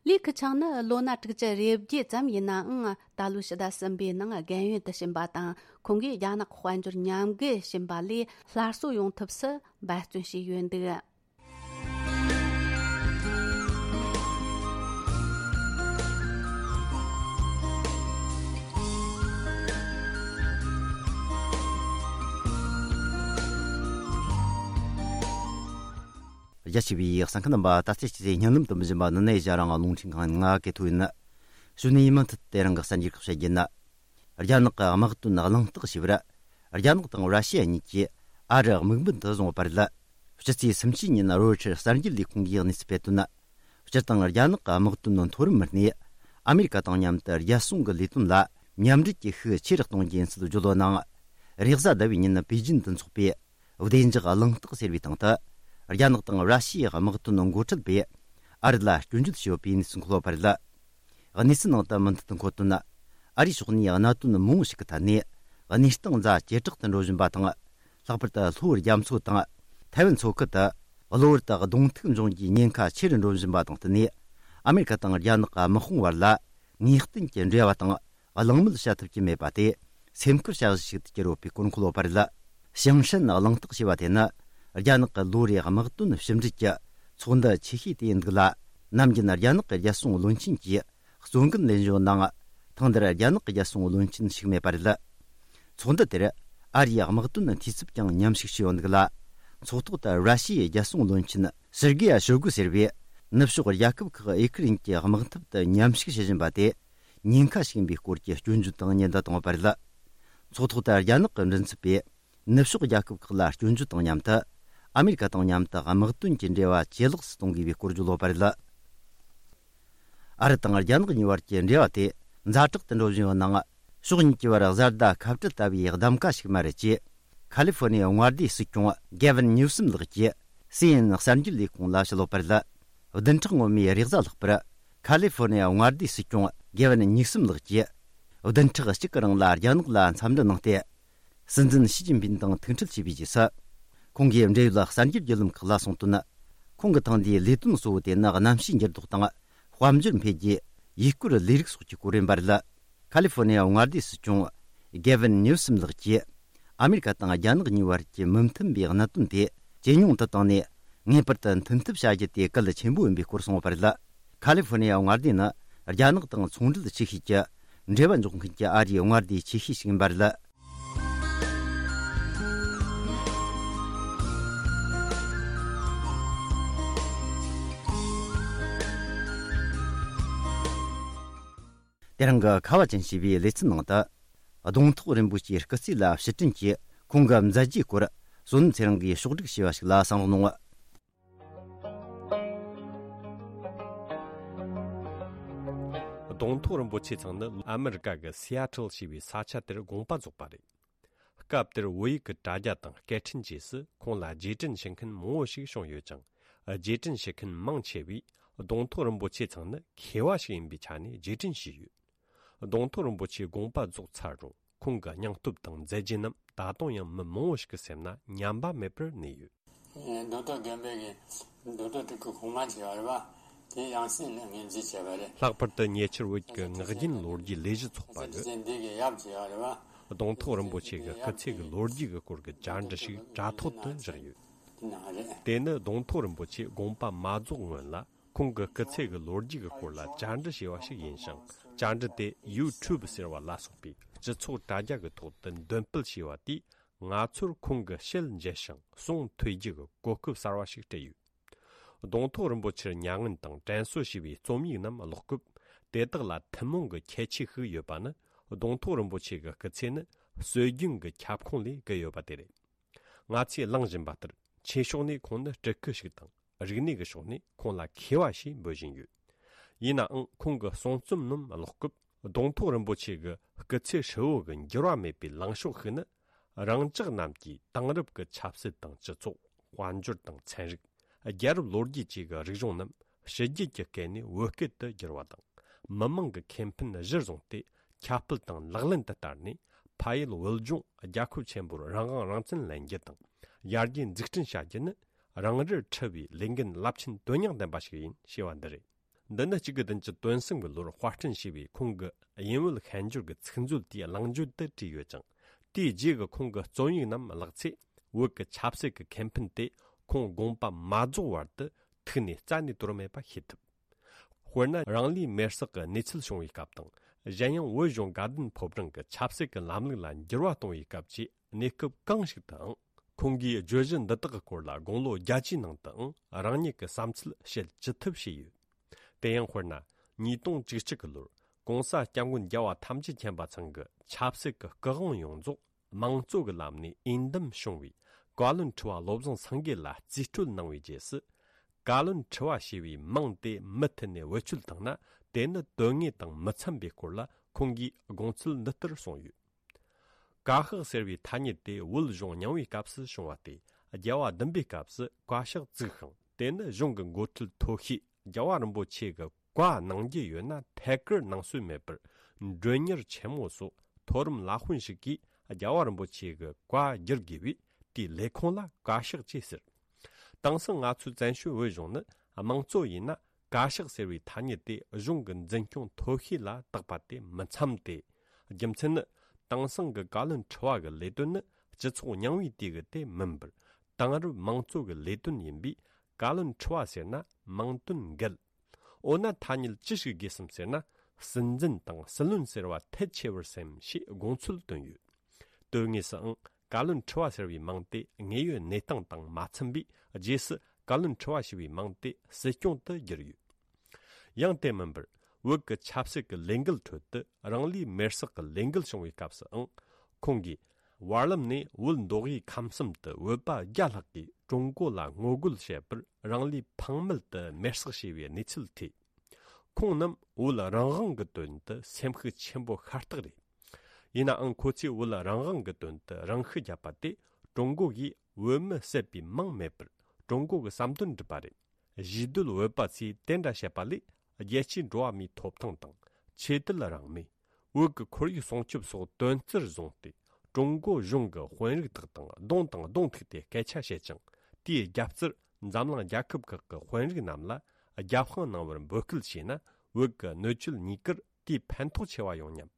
ལི་ཁེ་ཆང་ནི་ལོ་ན་དྲུག་ཅུ་རེ་བརྒྱད་ཙམ་ཡིན་ནའང་། ད་ལོའི་ཕྱི་ཟླ་གསུམ་པའི་ནང་རྒན་ཡོལ་དུ་ཕྱིན་པ་དང་། ཁོང་གིས་རྒྱ་ནག་དཔལ་འབྱོར་ཉམས་རྒུད་ཕྱིན་པ་ལས་སླར་གསོ་ཡོང་ཐབས་སུ་འབད་བརྩོན་བྱས་ཡོད་འདུག། རྒྱ་ཆེ་བའི་གསན་མཁན་རྣམ་པ། ད་ལྟའི་སྤྱི་ཚེས་བརྙན་ལམ་དུ་འབུལ་བཞིན་པ་ནི་ནས་ཞྭ་རང་རླུང་འཕྲིན་ཁང་ང་གི་ཐོག་ཡིན། གཞུག་ནས་མུ་མཐུད་དེ་རང་གི་གསར་འགྱུར་ཁག་བཤད་རྒྱུ་ཡིན། རྒྱ་ནག་གི་དམག་དོན་གླེང་སྟེགས་ཞེས་པར། རྒྱ་ནག་དང་ར་ཤི་ཡ་གཉིས་ཀྱིས་ཨ་རི་དམིགས་འབེན་དུ་བཟུང་བ་བར་ལ། སྤྱི་ཚེས་སུམ་ཅུ་ཉིན་རོའི་ཊར་གསར་འགྱུར་ལས་ཁུངས་ཀྱིས་གནས་ཚུལ་སྤེལ་དོན། སྤྱིར་བཏང་རྒྱ་ནག་གི་དམག་དོན་མཐོ་རིམ་མི་སྣས་ཨ་མེ་རི་ཀ་དང་མཉམ་དུ་རྒྱལ་སྲུང་གི་ལས་དོན་ལ་མཉམ་འབྲེལ་གྱི་ཤུགས་ཆེ་རུ་གཏོང་རྒྱུ་ཡིན་ཚུལ་བརྗོད་ཡོད་ནའང་། རེས་གཟའ་ཟླ་བའི་ཉིན་པེ་ཅིན་དུ་འཚོགས་པའི་བདེ་འཇགས་གླེང་སྟེགས་ཟེར་བའི་སྟེང་དུ། རྒྱ་ནག་དང་ར་ཤི་ཡའི་དམག་དོན་འགོ་ཁྲིད་པས་ཨ་རི་ལ་སྐྱོན་བརྗོད་བྱས་ཡོད་པའི་གནས་ཚུལ་འཁོད་ཡོད་པ་རེད། གནས་ཚུལ་ནང་དུ་མུ་མཐུད་དུ་འཁོད་དོན། ཨ་རིའི་ཕྱོགས་ནས་གནད་དོན་མང་པོ་ཞིག་གི་ཐད་ནས་གནས་སྟངས་ཛ་ཇེ་དྲག་ཏུ་འགྲོ་བཞིན་པ་དང་། ལྷག་པར་དུ་ལྷོ་རྒྱ་མཚོ་དང་ཐའེ་ཝན་མཚོ་ཁུལ་དུ་གློ་བུར་དུ་གདོང་ཐུག་འབྱུང་རྒྱུའི་ཉེན་ཁ་ཆེ་རུ་འགྲོ་བཞིན་པ་དང་བསྟུན་ནས། ཨ་མེ་རི་ཀ་དང་རྒྱ་ནག་གི་དམག་དཔུང་བར་ལ་ངེས་གཏན་གྱི་འབྲེལ་བ་དང་གླེང་མོལ་བྱ་ཐུབ་ཀྱི་མེད་པ་དེ་སེམས་ཁུར་བྱ་གཞི་ཞིག་ཏུ་གྱུར་ཡོད་པའི་སྐོར་འཁོད་ཡོད་པ་རེད། ཞིང་ཧྲན་གླེང་སྟེགས་ཞེས་པ་དེ་ནི་རྒྱ་ནག་གི་ལོ་རེའི་དམག་དོན་ཕྱི་འབྲེལ་གྱི་ཚོགས་འདུ་ཆེ་ཤོས་དེ་ཡིན་འདུག་ལ། ནམ་རྒྱུན་རྒྱ་ནག་གི་རྒྱལ་སྲུང་བློན་ཆེན་གྱིས་གཙོ་འགན་ལེན་བཞིན་ཡོད་ནའང་། ཐེངས་འདིར་རྒྱ་ནག་གི་རྒྱལ་སྲུང་བློན་ཆེན་ཞུགས་མེད་པ་རེད། ཚོགས་འདུ་དེར་ཨ་རིའི་དམག་དོན་འཐུས་ཚབ་ཀྱང་མཉམ་ཞུགས་བྱས་ཡོད་འདུག་ལ། ཚོགས་ཐོག་ཏུ་ར་ཤི་ཡའི་རྒྱལ་སྲུང་བློན་ཆེན་སེར་གེ་ཡ་ཤོ་གུ་ཟེར་བས། ནུབ་ཕྱོགས་རྒྱལ་ཁབ་ཁག་ཨེ་ཁུ་རན་གྱི་དམག་འཐབ་ཏུ་མཉམ་ཞུགས་བྱེད་བཞིན་པ་དེ་ཉེན་ཁ་ཞིག་ཡིན་པའི་སྐོར་གྱི་སྐྱོན་བརྗོད་དང་ཉེན་བརྡ་བཏང་བ་རེད། ཚོགས་ཐོག་ཏུ་རྒྱ་ནག་གི་མགྲིན་ཚབ་པས། ནུབ་ཕྱོགས་རྒྱལ་ཁབ་ཁག་ལ་སྐྱོན་བརྗོད་དང་མཉམ་དུ། ཨ་མེ་རི་ཀ་དང་མཉམ་དུ་དམག་དོན་གྱི་འབྲེལ་བ་ཇེ་ལེགས་སུ་གཏོང་དགོས་པའི་སྐོར་བརྗོད་ཡོད་པ་རེད། ཨ་རི་དང་རྒྱ་ནག་གཉིས་བར་གྱི་འབྲེལ་བ་དེ་ཛ་དྲག་ཏུ་འགྲོ་བཞིན་ཡོད་ནའང་། ཕྱོགས་གཉིས་ཀྱི་བར་བཟའ་ཟླ་ཁ་བྲལ་ལྟ་བུའི་གདམ་ག་ཞིག་མ་རེད་ཅེས། ཁ་ལི་ཧྥོ་ནི་ཡ་མངའ་སྡེའི་སྲིད་སྐྱོང་གེ་ཝིན་ཉིའུ་སམ་ལགས་ཀྱིས་སི་ཨེན་ཨེན་གསར་འགྱུར་ལས་ཁུངས་ལ་བཤད་ཡོད་པ་རེད། བདུན་ཕྲག་སྔོན་མའི་རེས་གཟའ་ལྷག་པར། ཁ་ལི་ཧྥོ་ནི་ཡ་མངའ་སྡེའི་སྲིད་སྐྱོང་གེ་ཝིན་ཉིའུ་སམ་ལགས་ཀྱིས། བདུན་ཕྲག་གཅིག་གི་རིང་ལ་རྒྱ་ནག་ལ་འཚམས་འདྲི་གནང་སྟེ། སྲིད་འཛིན་ཞི་ཅིན་ཕིན་དང་ཐུག་འཕྲད་བྱས་པའི་རྗེས་སུ། ཁོང་གིས་འབྲེལ་ཡོད་གསར་འགྱུར་བརྒྱུད་ལམ་ཁག་ལ་གསུངས་དོན། ཁོང་གི་ཐེངས་འདིའི་ལས་དོན་གཙོ་བོ་དེ་ནི་གནམ་གཤིས་འགྱུར་ལྡོག་དང་། དཔལ་འབྱོར་འཕེལ་རྒྱས། ཡུལ་སྐོར་ལས་རིགས་སོགས་ཀྱི་སྐོར་ཡིན་པ་རེད། ཁ་ལི་ཧྥོ་ནི་ཡ་མངའ་སྡེའི་སྲིད་སྐྱོང་གེ་ཝིན་ཉིའུ་སམ་ལགས་ཀྱིས། ཨ་མེ་རི་ཀ་དང་རྒྱ་ནག་གཉིས་བར་གྱི་མི་མཐུན་པའི་གནད་དོན་དེ་ཇེ་ཉུང་དུ་བཏང་ནས། ངེས་པར་དུ་མཐུན་ཐབས་བྱ་རྒྱུ་དེ་གལ་ཆེན་པོ་ཡིན་པའི་སྐོར་གསུངས་ཡོད་པ་རེད། ཁ་ལི་ཧྥོ་ནི་ཡ་མངའ་སྡེ་ནི་རྒྱ་ནག་དང་ཚོང་འབྲེལ་ཆེ་ཤོས་ཀྱི་འབྲེལ་བ་འཇོག་མཁན་གྱི་ཨ་རིའི་མངའ་སྡེ་ཆེ་ཤོས་ཤིག་ཡིན་པ་རེད། དེ་རིང་གི་ཁ་བ་ཅན་ཞེས་པའི་ལེ་ཚན་ནང་དུ། གདོང་ཐོག་རིན་པོ་ཆེའི་སྐུ་ཚེ་ལ་ཕྱིར་དྲན་གྱིས་ཁོང་གི་མཛད་རྗེས་སྐོར་བསོད་ནམས་ཚེ་རིང་གིས་ཕྱོགས་སྒྲིག་བྱས་པ་ཞིག་ལ་གསན་རོགས་གནང་། གདོང་ཐོག་རིན་པོ་ཆེ་ཚང་ནི་ཨ་མི་རི་ཀ་གི་སི་ཨ་ཊལ་ཞེས་པའི་ས་ཆ་དེར་དགོངས་པ་རྫོགས་པ་རེད། སྐབས་དེར་བོད་ཡིག་གི་དྲ་རྒྱ་དང་སྐད་འཕྲིན་བཅས་སུ་ཁོང་ལ་རྗེས་དྲན་ཞུ་མཁན་མང་བོ་ཞིག་བྱུང་ཡོད་ཅིང་། རྗེས་དྲན་ཞུ་མཁན་མང་ཆེ་བས་གདོང་ཐོག་རིན་པོ་ཆེ་ཚང་ནི་མཁས་པ་ཞིག་ཡིན་པའི་ཆ་ནས་རྗེས་དྲན་ཞུས་ཡོད། གདོང་ཐོག་རིན་པོ་ཆེའི་དགོངས་པ་རྫོགས་ཚར་རུང་ཁོང་གི་སྙིང་སྟོབས་དང་མཛད་རྗེས་རྣམས་ད་དུང་ཡང་མི་མང་བོ་ཞིག་གི་སེམས་ན་ཉམས་པ་མེད་པར་གནས་ཡོད། རྡོ་ཐོག་དགོན་པའི་གི་རྡོ་ཐོག་དེ་གི་གོང་མ་བྱས་པ་རེད་པ། དེ་ཡང་སྲིད་ལ་ངོས་འཛིན་བྱས་པ་རེད། ལྷག་པར་དུ་ཉེ་ཆར་བོད་ཀྱི་སྔགས་རྒྱུན་ལོ་རྒྱུས་ལས་གཞི་ཚོགས་པ་གི་འདི་གི་ཡབ་བྱས་པ་རེད་པ། གདོང་ཐོག་རིན་པོ་ཆེ་གི་སྐུ་ཚེ་གི་ལོ་རྒྱུས་ཀྱི་སྐོར་གྱི་བཅར་འདྲི་ཞིག་དྲ་ཐོག་ཏུ་བཞག་ཡོད། དེ་ནི་གདོང་ཐོག་རིན་པོ་ཆེ་དགོངས་པ་མ་རྫོགས་སྔོན་ལ་ཁོང་གི་སྐུ་ཚེ་གི་ལོ་རྒྱུས་ཀྱི་སྐོར་ལ་བཅར་འདྲི་བྱས་པ་ཞིག་ཡིན་ཞིང་། བཅར་འདྲི་དེ་ཡུ་ཊུབ་ཟེར་བ་ལ་སོགས་པའི་སྤྱི་ཚོགས་དྲ་རྒྱ་གི་ཐོག་ཏུ་འདོན་སྤེལ་བྱས་པ་དེས། ང་ཚོར་ཁོང་གི་ཞལ་མཇལ་ཞིང་གསུང་ཐོས་རྒྱུ་གི་གོ་སྐབས་གསར་བ་ཞིག་སྤྲད་ཡོད། གདོང་ཐོག་རིན་པོ་ཆེར་མྱ་ངན་དང་དྲན་གསོ་ཞེས་པའི་རྩོམ་ཡིག་རྣམས་ཀློག་སྐབས། དེ་དག་ལ་ཐུན་མོང་གི་ཁྱད་ཆོས་ཤིག་ཡོད་པ་ནི། གདོང་ཐོག་རིན་པོ་ཆེ་གི་སྐུ་ཚེ་ནི་སྲོལ་རྒྱུན་གྱི་ཁྱབ་ཁོངས་ལས་བརྒལ་ཡོད་པ་དེ་རེད། ང་ཚོས་གླེང་བཞིན་པ་ལྟར། ཆོས་ཕྱོགས་ནས་ཁོང་ནི་སྤྲུལ་སྐུ་ཞིག་དང་། རིག་གནས་ཀྱི་ཕྱོགས་ནས་ཁོང་ལ་མཁས་པ་ཞེས་འབོད་བཞིན་ཡོད། ཡིན་ནའང་ཁོང་གི་གསུང་རྩོམ་རྣམས་ཀློག་སྐབས། གདོང་ཐོག་རིན་པོ་ཆེ་གི་སྐུ་ཚེ་ཧྲིལ་བོ་གི་འགྱུར་བ་མེད་པའི་ལངས་ཕྱོགས་ཤིག་ནི། རང་ཅག་རྣམས་ཀྱིས་དེང་རབས་ཀྱི་ཆབ་སྲིད་དང་སྤྱི་ཚོགས། དཔལ་འབྱོར་དང་ཚན་རིག། རྒྱལ་རབས་ལོ་རྒྱུས་བཅས་ཀྱི་རིག་གཞུང་རྣམས་ཕྱི་རྒྱལ་གྱི་སྐད་ནས་བོད་སྐད་དུ་བསྒྱུར་བ་དང་། མི་མང་གི་ཁེ་ཕན་གཞིར་བཟུང་སྟེ་ཁྱབ་སྤེལ་དང་ལག་ལེན་དུ་བསྟར་ནས། ཕ་ཡུལ་བོད་ལྗོངས་རྒྱལ་ཁབ་ཆེན་པོར་རང་དབང་རང་བཙན་ལེན་རྒྱུ་དང་། ཡར་རྒྱས་འཛུགས་སྐྲུན་བྱ་རྒྱུ་ནི། རང་རེར་འཁྲི་བའི་ལས་འགན་རླབས་ཆེན་དོན་སྙིང་ལྡན་པ་ཞིག་ཡིན་ཞེས་པ་འདི་རེད། འདི་ནི་གཅིག་དགུ་བདུན་ཅུ་དོན་གསུམ་གྱི་ལོར་དཔར་སྐྲུན་བྱས་པའི་ཁོང་གི་དབྱིན་བོད་ཤན་སྦྱོར་གྱི་ཚིག་མཛོད་དེའི་གླེང་བརྗོད་དུ་བྲིས་ཡོད་ཅིང་། དེའི་རྗེས་ཀྱི་ཁོང་གི་རྩོམ་ཡིག་རྣམས་བཀླགས་ཚེ། བོད་ཀྱི་ཆབ་སྲིད་ཀྱི་ཁེ་ཕན་དེ་ཁོང་དགོངས་པ་མ་རྫོགས་བར་དུ་ཐུགས་ནས་རྩ་ནས་དོར་མེད་པ་ཤེས་ཐུབ། དཔེར་ན། རང་ལུས་མེར་སྲེག་གི་གནས་ཚུལ་བྱུང་བའི་སྐབས་དང་། གཞན་ཡང་བོད་གཞུང་དགའ་ལྡན་ཕོ་བྲང་གི་ཆབ་སྲིད་ཀྱི་ལམ་ལུགས་ལ་འགྱུར་བ་གཏོང་བའི་སྐབས་ཀྱི་གནས་སྐབས་གང་ཞིག་ཏུའང་། ཁོང་གིས་བརྗོད་གཞི་འདི་དག་གི་སྐོར་ལ་དགུང་ལོ་བརྒྱད་ཅུའི་ནང་དུའང་རང་ཉིད་ཀྱི་བསམ་ཚུལ་བཤད་ཅི་ཐུབ་བྱས་ཡོད། དེ་ཡང་དཔེར་ན། ཉིས་སྟོང་བཅུ་གཅིག་གི་ལོར་༸གོང་ས་༸སྐྱབས་མགོན་རྒྱལ་བ་ཐམས་ཅད་མཁྱེན་པ་ཚང་གི་ཆབ་སྲིད་ཀྱི་སྐུ་དབང་ཡོངས་རྫོགས་དམངས་གཙོ་གི་ལམ་ནས་འོས་འདེམས་བྱུང་བའི་བཀའ་བློན་ཁྲི་པ་བློ་བཟང་སེང་གེ་ལ་རྩིས་སྤྲོད་གནང་བའི་རྗེས་སུ། བཀའ་བློན་ཁྲི་པ་ཞེས་པའི་མིང་དེ་མུ་མཐུད་ནས་བེད་སྤྱོད་བཏང་ན། དེ་ནི་དོན་དངོས་དང་མི་འཚམ་པའི་སྐོར་ལ་ཁོང་གིས་དགོངས་ཚུལ་འདི་ལྟར་གསུངས་ཡོད། བཀའ་ཤག་ཟེར་བའི་ཐ་སྙད་དེ་བོད་གཞུང་རྙིང་བའི་སྐབས་སུ་བྱུང་བ་སྟེ། རྒྱལ་བ་བདུན་པའི་སྐབས་སུ་བཀའ་ཤག་བཙུགས་ཤིང་། དེ་ནི་གཞུང་གི་འགོ་ཁྲིད་མཐོ་ཤོས་རྒྱལ་བ་རིན་པོ་ཆེ་གི་བཀའ་གནང་རྒྱུ་ཡོད་ན་ཐད་ཀར་གནང་སྲོལ་མེད་པར། མགྲོན་གཉེར་ཆེན་མོ་སོགས་མཐོ་རིམ་བླ་དཔོན་ཞིག་གིས་རྒྱལ་བ་རིན་པོ་ཆེ་གི་བཀའ་བསྒྱུར་དགོས་པས། དེའི་ལས་ཁུངས་ལ་བཀའ་ཤག་ཅེས་ཟེར། དེང་སང་ང་ཚོའི་བཙན་བྱོལ་བོད་གཞུང་ནི་དམངས་གཙོ་ཡིན་ན། བཀའ་ཤག་ཟེར་བའི་ཐ་སྙད་དེ་གཞུང་གི་འཛིན་སྐྱོང་མཐོ་ཤོས་ལ་བཏགས་པ་དེ་མི་འཚམ་སྟེ། རྒྱུ་མཚན་ནི། དེང་སང་གི་བཀའ་བློན་ཁྲི་པ་གི་ལས་དོན་ནི་སྤྱི་ཚོགས་རྙིང་བའི་དུས་གི་དེ་མིན་པར། དེང་རབས་དམངས་གཙོ་གི་ལས་དོན་ཡིན་པས། བཀའ་བློན་ཁྲི་པ་ཟེར་ན་མིང་དོན་འགལ། འོ་ན་ཐ་སྙད་ཅི་ཞིག་དགོས་སམ་ཟེར་ན། སྲིད་འཛིན་དང་སྲིད་བློན་ཟེར་བ་ཐལ་ཆེ་བར་སེམས་ཞེས་དགོངས་ཚུལ་བཏོན་ཡོད། དོན་དངོས་སུའང་བཀའ་བློན་ཁྲི་པ་ཟེར་བའི་མིང་དེ་དངོས་ཡོད་གནས་སྟངས་དང་མ་འཚམ་པས། རྗེས་སུ་བཀའ་བློན་ཁྲི་པ་ཞེས་པའི་མིང་དེ་སྲིད་སྐྱོང་དུ་བསྒྱུར་ཡོད། ཡང་དེ་མིན་པར། བོད་ཀྱི་ཆབ་སྲིད་ཀྱི་ལས་འགུལ་ཁྲོད་དུ་རང་ལུས་མེར་སྲེག་གི་ལས་འགུལ་བྱུང་བའི་སྐབས་སུའང་། ཁོང་གིས་བར་ལམ་ནས་བོད་མདོ་དབུས་ཁམས་གསུམ་དུ་བོད་པ་བརྒྱ་ལྷག་གིས་ཀྲུང་གོ་ལ་ངོ་རྒོལ་བྱེད་པར་རང་ལུས་ཕངས་མེད་དུ་མེར་སྲེག་བྱས་པའི་གནས་ཚུལ་ཐོས། ཁོང་རྣམས་བོད་རང་དབང་གི་དོན་དུ་སེམས་ཤུགས་ཆེན་པོ་ཤ་སྟག་རེད། ཡིན་ནའང་ཁོ་ཚོས་བོད་རང་དབང་གི་དོན་དུ་རང་ཤུགས་བརྒྱབ་པ་དེ་ཀྲུང་གོ་གིས་བོད་མི་བསད་པའི་མིང་མེད་པར་ཀྲུང་གོ་གི་བསམ་དོན་བསྒྲུབས་པ་རེད། གཞིས་སྡོད་བོད་པ་ཚོས་དེ་འདྲ་བཤད་པ་ལས། རྒྱལ་སྤྱིའི་འགྲོ་བ་མིའི་ཐོབ་ཐང་དང་། ཆོས་དད་རང་མོས། བོད་ཀྱི་ཁོར་ཡུག་སྲུང་སྐྱོབ་སོགས་དོན་རྩིར་བཟུང་སྟེ། ཀྲུང་གོ་གཞུང་གི་དཔོན་རིགས་དག་དང་གདོང་དང་གདོང་ཐུག་སྟེ་སྐད་ཆ་བཤད་ཅིང་། དེའི་རྒྱབ་རྩར་འཛམ་གླིང་རྒྱལ་ཁབ་ཁག་གི་དཔོན་རིགས་རྣམས་ལ་རྒྱབ་དཔུང་གནང་བར་འབོད་སྐུལ་བྱས་ན། བོད་ཀྱི་གནོད་སྐྱེལ་གཉིས་ཀར་དེས་ཕན་ཐོགས་ཆེ་བ་ཡོང་སྙམ།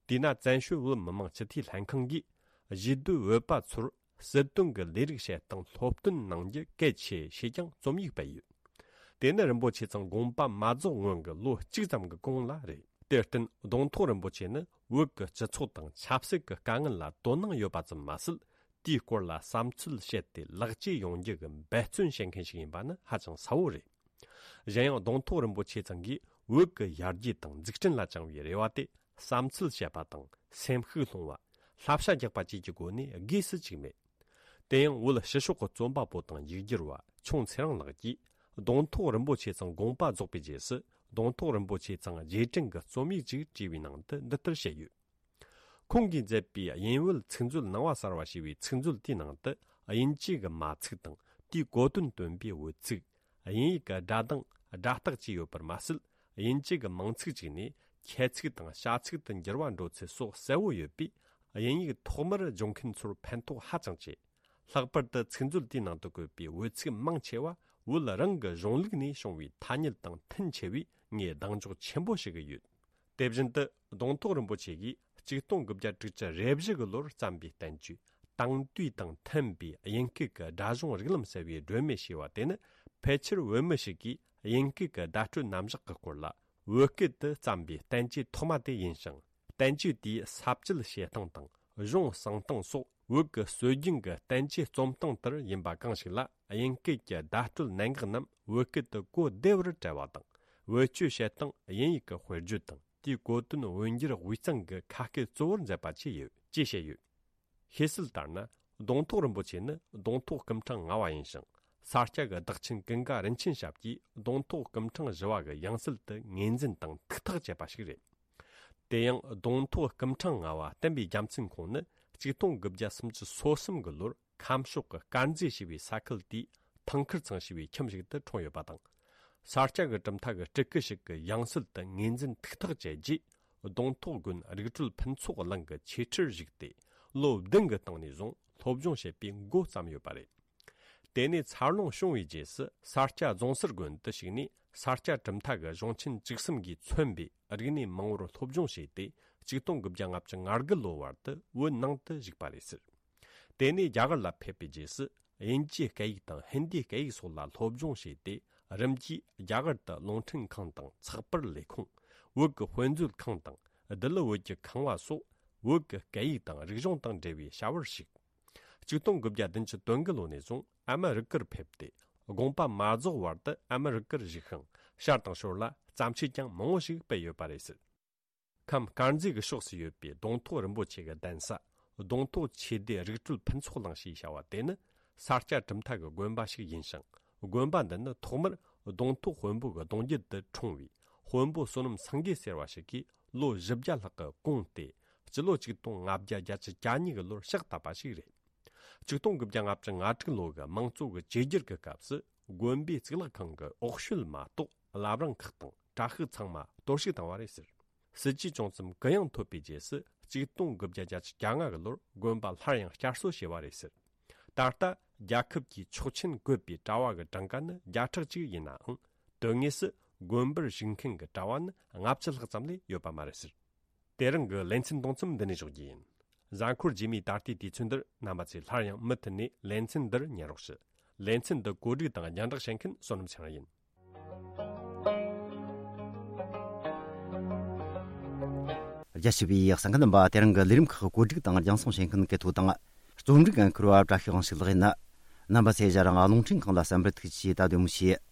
དེས་ན་བཙན་བྱོལ་བོད་མི་མང་སྤྱི་འཐུས་ལྷན་ཁང་གིས་གཞིས་སྡོད་བོད་པ་ཚོར་སྲིད་དོན་གྱི་ལས་རིགས་བྱེད་སྟངས་སློབ་སྟོན་གནང་རྒྱུ་གལ་ཆེ་ཞེས་ཀྱང་རྩོམ་ཡིག་སྤེལ་ཡོད། དེ་ནི་རིན་པོ་ཆེ་ཚང་དགོངས་པ་མ་རྫོགས་སྔོན་གྱི་ལོ་གཅིག་ཙམ་གྱི་གོང་ལ་རེད། དེར་བརྟེན་གདོང་ཐོག་རིན་པོ་ཆེ་ནི་བོད་ཀྱི་སྤྱི་ཚོགས་དང་ཆབ་སྲིད་ཀྱི་དཀའ་ངལ་ལ་དོ་སྣང་ཡོད་པ་ཙམ་མ་ཟད། དེའི་སྐོར་ལ་བསམ་ཚུལ་བཤད་དེ་ལེགས་བཅོས་ཡོང་རྒྱུ་གི་འབད་བརྩོན་བྱེད་མཁན་ཞིག་ཡིན་པ་ནི་ཧ་ཅང་གསལ་བོ་རེད། གཞན་ཡང་གདོང་ཐོག་རིན་པོ་ཆེ་ཚང་གིས་ བོད་ཀྱི་ཡར་རྒྱས་དང་འཛུགས་སྐྲུན་ལ་བཅངས་པའི་རེ་བ་དེ་བསམ་ཚུལ་བཤད་པ་དང་སེམས་ཤུགས་སློང་བ། བསླབ་བྱ་རྒྱག་པ་བཅས་ཀྱི་སྒོ་ནས་དགོས་སུ་བཅུག་མེད། དེ་ཡང་བོད་ཕྱི་ཕྱོགས་ཀྱི་རྩོམ་པ་པོ་དང་ཡིག་སྒྱུར་བ་ཆུང་ཚེ་རིང་ལགས་ཀྱིས་གདོང་ཐོག་རིན་པོ་ཆེ་ཚང་དགོངས་པ་རྫོགས་པའི་རྗེས་སུ་གདོང་ཐོག་རིན་པོ་ཆེ་ཚང་རྗེས་དྲན་གྱི་རྩོམ་ཡིག་ཅིག་བྲིས་པའི་ནང་དུ་འདི་ལྟར་བཤད་ཡོད། ཁོང་གིས་མཛད་པའི་དབྱིན་བོད་ཚིག་མཛོད་ནང་པ་གསར་བ་ཞེས་པའི་ཚིག་མཛོད་དེའི་ནང་དུ་དབྱིན་ཇི་གི་མ་ཚིག་དང་དེའི་གོ་དོན་སྟོན་པའི་འོལ་ཚིག་དབྱིན་ཡིག་གི་སྒྲ་གདངས་སྒྲ་རྟགས་བཅས་ཡོད་པར་མ་ཟད། དབྱིན་ཇི་གི་མིང་ཚིག་ཅིག་ནས་ཁྱད་ཚིག་དང་བྱ་ཚིག་ཏུ་འགྱུར་བ་འགྲོ་ཚུལ་སོགས་གསལ་བོ་ཡོད་པས། དབྱིན་ཡིག་ཐོག་མར་སྦྱོང་མཁན་ཚོར་ཕན་ཐོགས་ཧ་ཅང་ཆེ། ལྷག་པར་དུ་ཚིག་མཛོད་དེའི་ནང་དུ་བཀོད་པའི་འོལ་ཚིག་མང་ཆེ་བ་བོད་རང་གི་གཞུང་ལུགས་ནས་བྱུང་བའི་ཐ་སྙད་དང་མཐུན་ཆེ་བས། ངས་གདེང་འཇོག་ཆེན་པོ་ཞིག་ཡོད། དེ་བཞིན་དུ་གདོང་ཐོག་རིན་པོ་ཆེ་གིས་ཆིག་སྟོང་དགུ་བརྒྱ་དྲུག་ཅུ་རེ་བཞི་གི་ལོར་བརྩམས་པའི་བསྟན་བཅོས་དེང་དུས་དང་མཐུན་པའི་དབྱིན་སྐད་ཀྱི་སྒྲ་གཞུང་རིགས་ལམ་ཟེར་བའི་སྒྲོན་མེ་ཞེས་པ་དེ་ནི། ཕལ་ཆེར་བོད་མི་ཞིག་གིས་དབྱིན་སྐད་ཀྱི་བརྡ་སྤྲོད་རྣམ་གཞག་གི་སྐོར་ལ་བོད་སྐད་དུ་བརྩམས་པའི་བསྟན་བཅོས་ཐོག་མ་དེ་ཡིན་ཞིང་། བསྟན་བཅོས་དེའི་ས་བཅད་བཤད་སྟངས་དང་གཞུང་གསུང་སྟངས་སོགས་བོད་ཀྱི་སྲོལ་རྒྱུན་གྱི་བསྟན་བཅོས་རྩོམ་སྟངས་ལྟར་ཡིན་པ་གང་ཞིག་ལ། དབྱིན་སྐད་ཀྱི་བརྡ་སྤྲོད་གནད་འགག་རྣམས་བོད་སྐད་དུ་གོ་བདེ་བར་བཀྲལ་བ་དང་། བེད་སྤྱོད་བྱེད་སྟངས་དབྱིན་ཡིག་གི་དཔེར་བརྗོད་དང་དེའི་གོ་དོན་འོས་འགྱུར་དབུས་གཙང་གི་ཁ་སྐད་གཙོ་བོར་མཛད་པ་བཅས་ཡོད་ཅེས་བཤད་ཡོད། ཤེས་གསལ་ལྟར་ན། གདོང་ཐོག་རིན་པོ་ཆེ་ནི་གདོང་ཐོག་སྐུ་ཕྲེང་ལྔ་བ་ཡིན་ཞིང་། ས་སྐྱ་གི་བདག་ཆེན་ཀུན་དགའ་རིན་ཆེན་ཞབས་ཀྱིས་གདོང་ཐོག་སྐུ་ཕྲེང་བཞི་བ་གི་ཡང་སྲིད་དུ་ངོས་འཛིན་དང་ཐུགས་ཐག་བཅད་པ་ཞིག་རེད། དེ་ཡང་གདོང་ཐོག་སྐུ་ཕྲེང་ལྔ་བ་བསྟན་པའི་རྒྱལ་མཚན་ཁོང་ནི་ཆིག་སྟོང་དགུ་བརྒྱ་སུམ་ཅུ་སོ་གསུམ་གི་ལོར་ཁམས་ཕྱོགས་ཀྱི་དཀར་མཛེས་ཞེས་པའི་ས་ཁུལ་དེའི་ཐང་ཁུར་ཚང་ཞེས་པའི་ཁྱིམ་ཞིག་ཏུ་འཁྲུངས་ཡོད་པ་དང་། ས་སྐྱ་གི་གྲུབ་མཐའ་གི་སྤྲུལ་སྐུ་ཞིག་གི་ཡང་སྲིད་དུ་ངོས་འཛིན་ཐུགས་ཐག་བཅད་རྗེས། གདོང་ཐོག་དགོན་རིག་གྲོལ་ཕུན་ཚོགས་གླིང་གི་ཆོས་ཁྲིར་བཞུགས་ཏེ། ལོ་བདུན་གྱི་སྟེང་ནས་བཟུང་སློབ་སྦྱོང་བྱེད་པའི་འགོ་བརྩམས་ཡོད་པ་རེད། དེ་ནས་འཚར་ལོངས་བྱུང་བའི་རྗེས་སུ་ས་སྐྱ་རྫོང་སར་དགོན་དུ་ཞུགས་ནས། ས་སྐྱ་གྲུབ་མཐའ་གི་གཞུང་ཆེན་བཅུ་གསུམ་གྱིས་མཚོན་པའི་རིག་གནས་མང་བོར་སློབ་སྦྱོང་བྱས་ཏེ། ཆིག་སྟོང་དགུ་བརྒྱ་ལྔ་བཅུ་ང་དགུ་ལོ་བར་དུ་བོད་ནང་དུ་བཞུགས་པ་རེད་ཟེར། དེ་ནས་རྒྱ་གར་ལ་ཕེབས་པའི་རྗེས་སུ། དབྱིན་ཇིའི་སྐད་ཡིག་དང་ཧིན་དིའི་སྐད་ཡིག་སོགས་ལ་སློབ་སྦྱོང་བྱས་ཏེ། རིམ་གྱིས་རྒྱ་གར་དུ་རླུང་འཕྲིན་ཁང་དང་ཚགས་པར་ལས་ཁུངས། བོད་ཀྱི་དཔེ་མཛོད་ཁང་དང་། ལྡི་ལི་བོད་ཀྱི་ཁང་བ་སོགས་བོད་ཀྱི་སྐད་ཡིག་དང་རིག་གཞུང་དང་འབྲེལ་བའི་བྱ་བར་ཞུགས། ཆིག་སྟོང་དགུ་བརྒྱ་བདུན་ཅུ་དོན་དགུ་ལོ་ནས་བཟུང་ཨ་མི་རི་ཀར་ཕེབས་ཏེ། དགོངས་པ་མ་རྫོགས་བར་དུ་ཨ་མི་རི་ཀར་བཞུགས་ཤིང་། ཤར་དང་ཞོར་ལ་བརྩམས་ཆོས་ཀྱང་མང་བོ་ཞིག་སྤེལ་ཡོད་པ་རེད་ཟེར། ཁམས་དཀར་མཛེས་ཀྱི་ཕྱོགས་སུ་ཡོད་པའི་གདོང་ཐོག་རིན་པོ་ཆེ་གི་གདན་ས། གདོང་ཐོག་ཆོས་སྡེ་རིག་གྲོལ་ཕུན་ཚོགས་གླིང་ཞེས་བྱ་བ་དེ་ནི། ས་སྐྱ་གྲུབ་མཐའ་གི་དགོན་པ་ཞིག་ཡིན་ཞིང་། དགོན་པ་འདི་ནི་ཐོག་མར་གདོང་ཐོག་དཔོན་པོ་གི་གདུང་རྒྱུད་དུ་འཁྲུངས་པའི་དཔོན་པོ་བསོད་ནམས་སེང་གེ་ཟེར་བ་ཞིག་གིས་ལོ་བཞི་བརྒྱ་ལྷག་གི་གོང་སྟེ། སྤྱི་ལོ་ཆིག་སྟོང་ལྔ་བརྒྱ་གྱ་གཉིས་ཀྱི་ལོར་ཕྱག་བཏབ་པ་ཞིག་རེད། ཆིག་སྟོང་དགུ་བརྒྱ་ལྔ་བཅུ་ང་དྲུག་ལོ་གི་དམངས་གཙོ་གི་བཅོས་བསྒྱུར་གྱི་སྐབས་སུ། དགོན་པའི་གཙུག་ལག་ཁང་གི་འོག་ཤོད་མ་གཏོགས་བླ་བྲང་ཁག་དང་གྲྭ་ཤག་ཚང་མ་གཏོར་བཤིག་བཏང་བ་རེད་ཟེར། སྲིད་ཇུས་བྱུང་མཚམས་གུ་ཡངས་ཐོབ་པའི་རྗེས་སུ། ཆིག་སྟོང་དགུ་བརྒྱ་གྱ་ལྔ་གི་ལོར་དགོན་པ་སླར་ཡང་བསྐྱར་གསོ་བྱས་པ་རེད་ཟེར། ད་ལྟ་རྒྱལ་ཁབ་ཀྱིས་ཆོག་མཆན་བཀོད་པའི་གྲྭ་བ་གི་གྲངས་ཀ་ནི་བརྒྱ་ཕྲག་གཅིག་ཡིན་ནའང་། དོན་དངོས་སུ་དགོན་པར་ཞུགས་མཁན་གྱི་གྲྭ་བ་ནི་ལྔ་བཅུ་ལྷག་ཙམ་ལས་ཡོད་པ་མ་རེད་ཟེར། དེ་རིང་གི་ལེ་ཚན་གཏོང་མཚམས་འདི་ནས་འཇོག་རྒྱུ་ཡིན། གཟའ་འཁོར་རྗེས་མའི་ད་ལྟའི་དུས་ཚོད་འདིར་རྣམ་པ་ཚོས་སླར་ཡང་མུ་མཐུད་ནས་ལེ་ཚན་འདིར་ཉན་རོགས་ཞུ། ལེ་ཚན་འདི་གོ་སྒྲིག་དང་རྒྱང་བསྒྲགས་བྱེད་མཁན་བསོད་ནམས་ཚེ་རིང་ཡིན། རྒྱ་ཆེ་བའི་གསན་མཁན་རྣམ་པ། དེ་རིང་གི་ལས་རིམ་ཁག་གོ་སྒྲིག་དང་རྒྱང་སྲིང་བྱེད་མཁན་སྐལ་ཐོག་དང་། རྩོམ་སྒྲིག་འཁུར་བ་བཀྲ་ཤིས་དབང་ཕྱུག་ལགས་ཡིན། རྣམ་པ་ཚོས་ཞལ་རང་རླུང་འཕྲིན་ཁང་ལ་གསན་པར་ཐུགས་རྗེ་ཆེ། ད་དུང་མི་ཤེས།